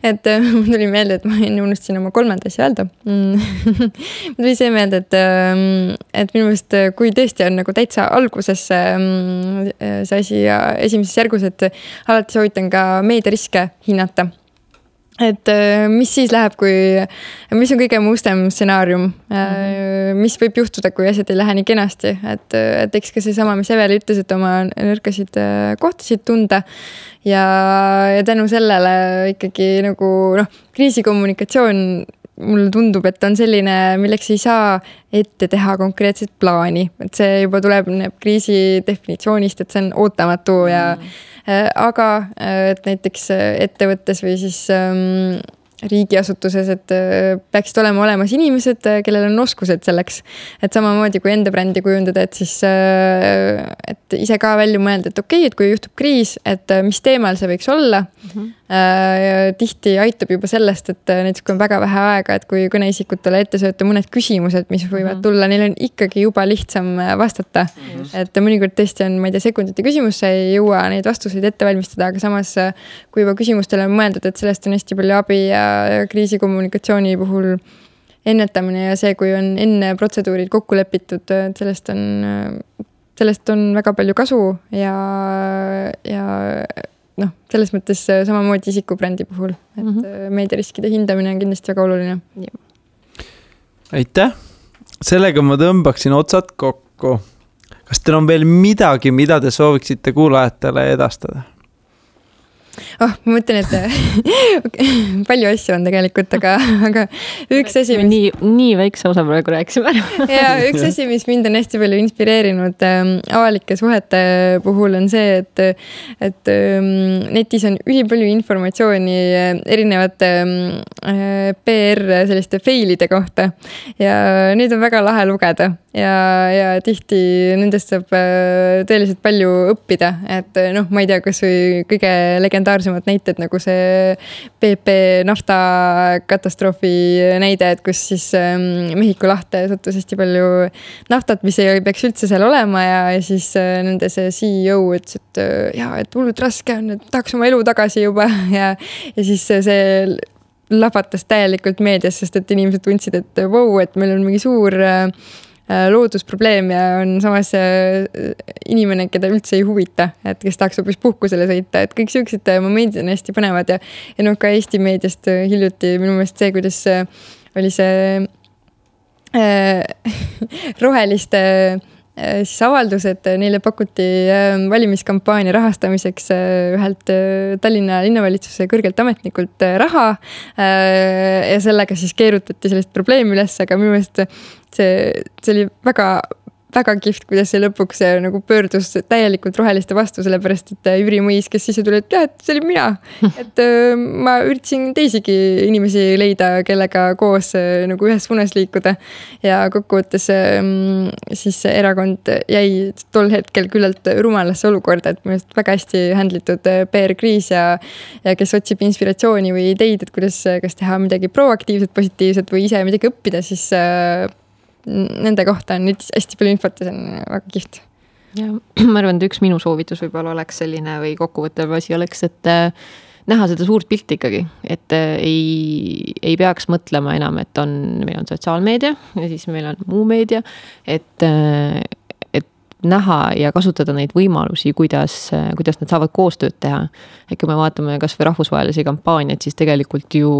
Et mul tuli meelde, et ma enne unustasin oma 3. asja öelda. Mul tuli see meelde, et minu meelest, kui tõesti on nagu täitsa alguses see asi ja esimeses järgus, et alati soovitan ka meediariske hinnata. Et mis siis läheb, mis on kõige mustem stsenaarium, mis võib juhtuda, kui asjad ei lähe nii kenasti, et eks ka see sama, mis Eveli ütles, et oma nõrkasid kohtasid tunda ja tänu sellele ikkagi nagu kriisikommunikatsioon mulle tundub, et on selline, milleks ei saa ette teha konkreetset plaani, et see juba tuleb kriisi definitsioonist, et see on ootamatu ja aga et näiteks ettevõttes või siis riigiasutuses, et peaksid olema olemas inimesed, kellel on oskused selleks. Et samamoodi kui enda brändi kujundada, et siis et ise ka välja mõelda, et okei, et kui juhtub kriis, et mis teemal see võiks olla. Tihti aitab juba sellest, et näiteks kui on väga vähe aega, et kui kõneisikutele ette sööta mõned küsimused, mis võivad tulla, neil on ikkagi juba lihtsam vastata. Et mõnikord tõesti on, ma ei tea, sekundite küsimus, sa ei jõua neid vastuseid ette valmistada, aga samas kui juba küsimustele on mõeldud, et sellest on hästi palju abi ja kriisikommunikatsiooni puhul ennetamine ja see, kui on enne protseduurid kokku lepitud, et sellest on väga palju kasu ja noh, selles mõttes samamoodi isikubrändi puhul, et meediariskide hindamine on kindlasti väga oluline. Aitäh! Sellega ma tõmbaksin otsad kokku. Kas teil on veel midagi, mida te sooviksite kuulajatele edastada? Ma mõtlen, et palju asju on tegelikult, aga üks asi... Nii väikse osa praegu rääkisime. Ja üks asi, mis mind on hästi palju inspireerinud avalike suhete puhul on see, et netis on ülipalju informatsiooni erinevate PR selliste failide kohta ja neid on väga lahe lugeda ja tihti nendest saab tõeliselt palju õppida, et noh, ma ei tea, kas või kõige legendaarsemad näited nagu see PP nafta katastroofi näide, et kus siis Mehhiko lahte sattus hästi palju naftat, mis ei peaks üldse seal olema ja siis nende see CEO ütles, et hullult raske on, et tahaks oma elu tagasi juba ja siis see lapatas täielikult meedias, sest et inimesed tundsid, et wow, et meil on mingi suur loodusprobleem ja on samas inimene, keda üldse ei huvita, et kes tahaks hoopis puhkusele sõita, et kõik sellised momendid on hästi põnevad ja noh, ka Eesti meediast hiljuti minu meelest see, kuidas oli see roheliste siis avaldus, et neile pakuti valimiskampaania rahastamiseks ühelt Tallinna linnavalitsuse kõrgelt ametnikult raha ja sellega siis keerutati sellist probleemi üles, aga minu meelest see oli väga kihvt, kuidas see lõpuks nagu pöördus täielikult roheliste vastu, sellepärast, et Jüri Mõis, kes sisse tuli, et jah, et see oli mina. Et ma üritasin teisigi inimesi leida, kellega koos nagu ühes suunas liikuda. Ja kokkuvõttes siis erakond jäi tol hetkel küllalt rumalasse olukorda, et minu väga hästi handlitud PR-kriis ja kes otsib inspiratsiooni või ideid, et kuidas kas teha midagi proaktiivset, positiivset või ise midagi õppida, siis nende kohta on nüüd hästi palju infot ja see on väga kihvt. Ja, ma arvan, et üks minu soovitus võib-olla oleks selline või kokkuvõttev asi oleks, et näha seda suurt pilti ikkagi, et ei peaks mõtlema enam, et meil on sotsiaalmeedia ja siis meil on muu meedia, et näha ja kasutada neid võimalusi, kuidas nad saavad koostööd teha. Et kui me vaatame kas või rahvusvahelisi kampaaniaid, siis tegelikult ju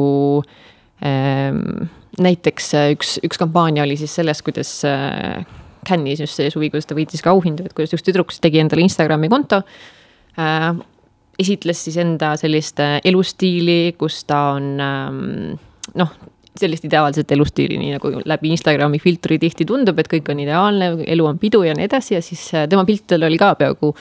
näiteks üks kampaania oli siis sellest, kuidas Cannes'is just see suvi, kuidas ta võitis ka auhindu, et kuidas üks tüdruks tegi endale Instagrami konto, esitles siis enda sellist elustiili, kus ta on sellist ideaalset elustiili, nii nagu läbi Instagrami filtri tihti tundub, et kõik on ideaalne, elu on pidu ja nii edasi ja siis tema piltidel oli ka peaaegu,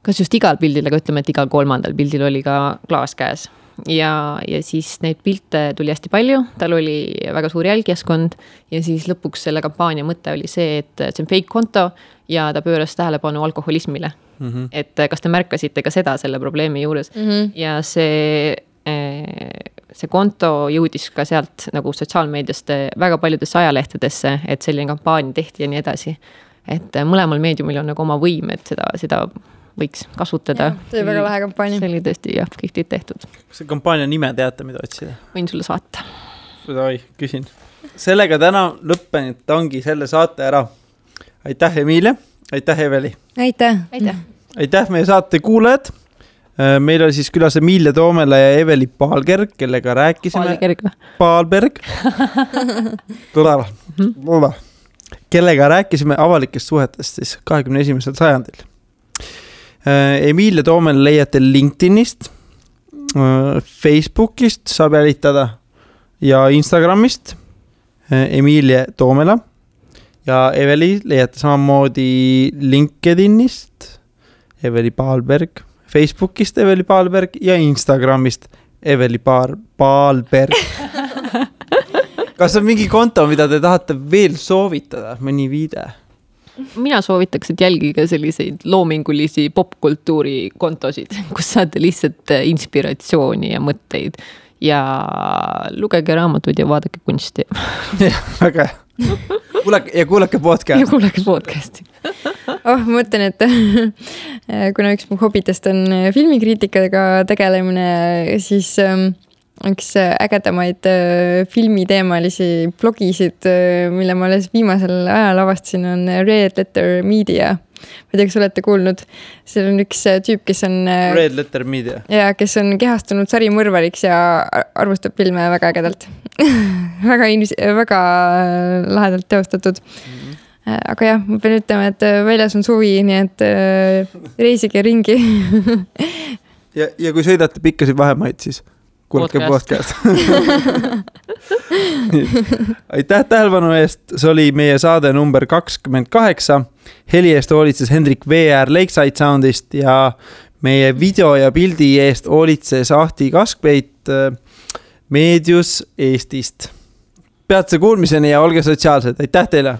kas just igal pildil, aga ütleme, et igal 3. pildil oli ka klaas käes. Ja siis neid pilte tuli hästi palju, tal oli väga suur jälgijaskond ja siis lõpuks selle kampaania mõte oli see, et see on fake konto ja ta pööras tähelepanu alkoholismile. Et kas te märkasite ka seda selle probleemi juures ja see konto jõudis ka sealt nagu sotsiaalmeediast väga paljudesse ajalehtedesse, et selline kampaania tehti ja nii edasi. Et mõlemal meediumil on nagu oma võim, et seda võiks kasutada. See oli väga lahe kampaania. See oli tõesti kihvtit tehtud. Kas see kampaania nime teate, mida otsida? Võin sulle saata. Küsin. Sellega täna lõppenud ongi selle saate ära. Aitäh, Emilia. Aitäh, Eveli. Aitäh. Aitäh meie saate kuulajad. Meil oli siis külas Emilia Toomela ja Eveli Paalberg, kellega rääkisime. Paalberg. Kellega rääkisime avalikest suhetest siis 21. sajandil. Emilia Toomel leiate LinkedInist, Facebookist saab jälitada ja Instagramist Emilia Toomela ja Eveli leiate samamoodi LinkedInist Eveli Paalberg, Facebookist Eveli Paalberg ja Instagramist Eveli Paalberg. Kas on mingi konto, mida te tahate veel soovitada, mõni viide? Mina soovitaks, et jälgige selliseid loomingulisi popkultuuri kontosid, kus saate lihtsalt inspiratsiooni ja mõtteid ja lugege raamatuid ja vaadake kunsti. Jah, väga hea. Ja kuulake podcasti. Ja kuulake podcasti. Ma mõtlen, et kuna üks mu hobitest on filmikriitikaga tegelemine, siis üks ägedamaid filmiteemalisi blogisid, mille ma alles viimasel ajal avastasin, on Red Letter Media. Ma ei tea, kas olete kuulnud. Seal on üks tüüp, kes on Red Letter Media. Ja kes on kehastunud sarimõrvariks ja arvustab filme väga ägedalt. väga lahedalt teostatud. Aga jah, ma pean ütlema, et väljas on suvi, nii et reisige ringi. ja kui sõidate pikkasid vahemaid, siis kuulake podcast. Aitäh tähelepanu eest, see oli meie saade number 28. Heli eest hoolitses Hendrik VR Lakeside Soundist ja meie video ja pildi eest hoolitses Ahti Kaskpeit Meedius Eestist. Peatse kuulmiseni ja olge sotsiaalsed. Aitäh teile!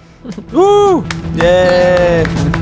Yeah!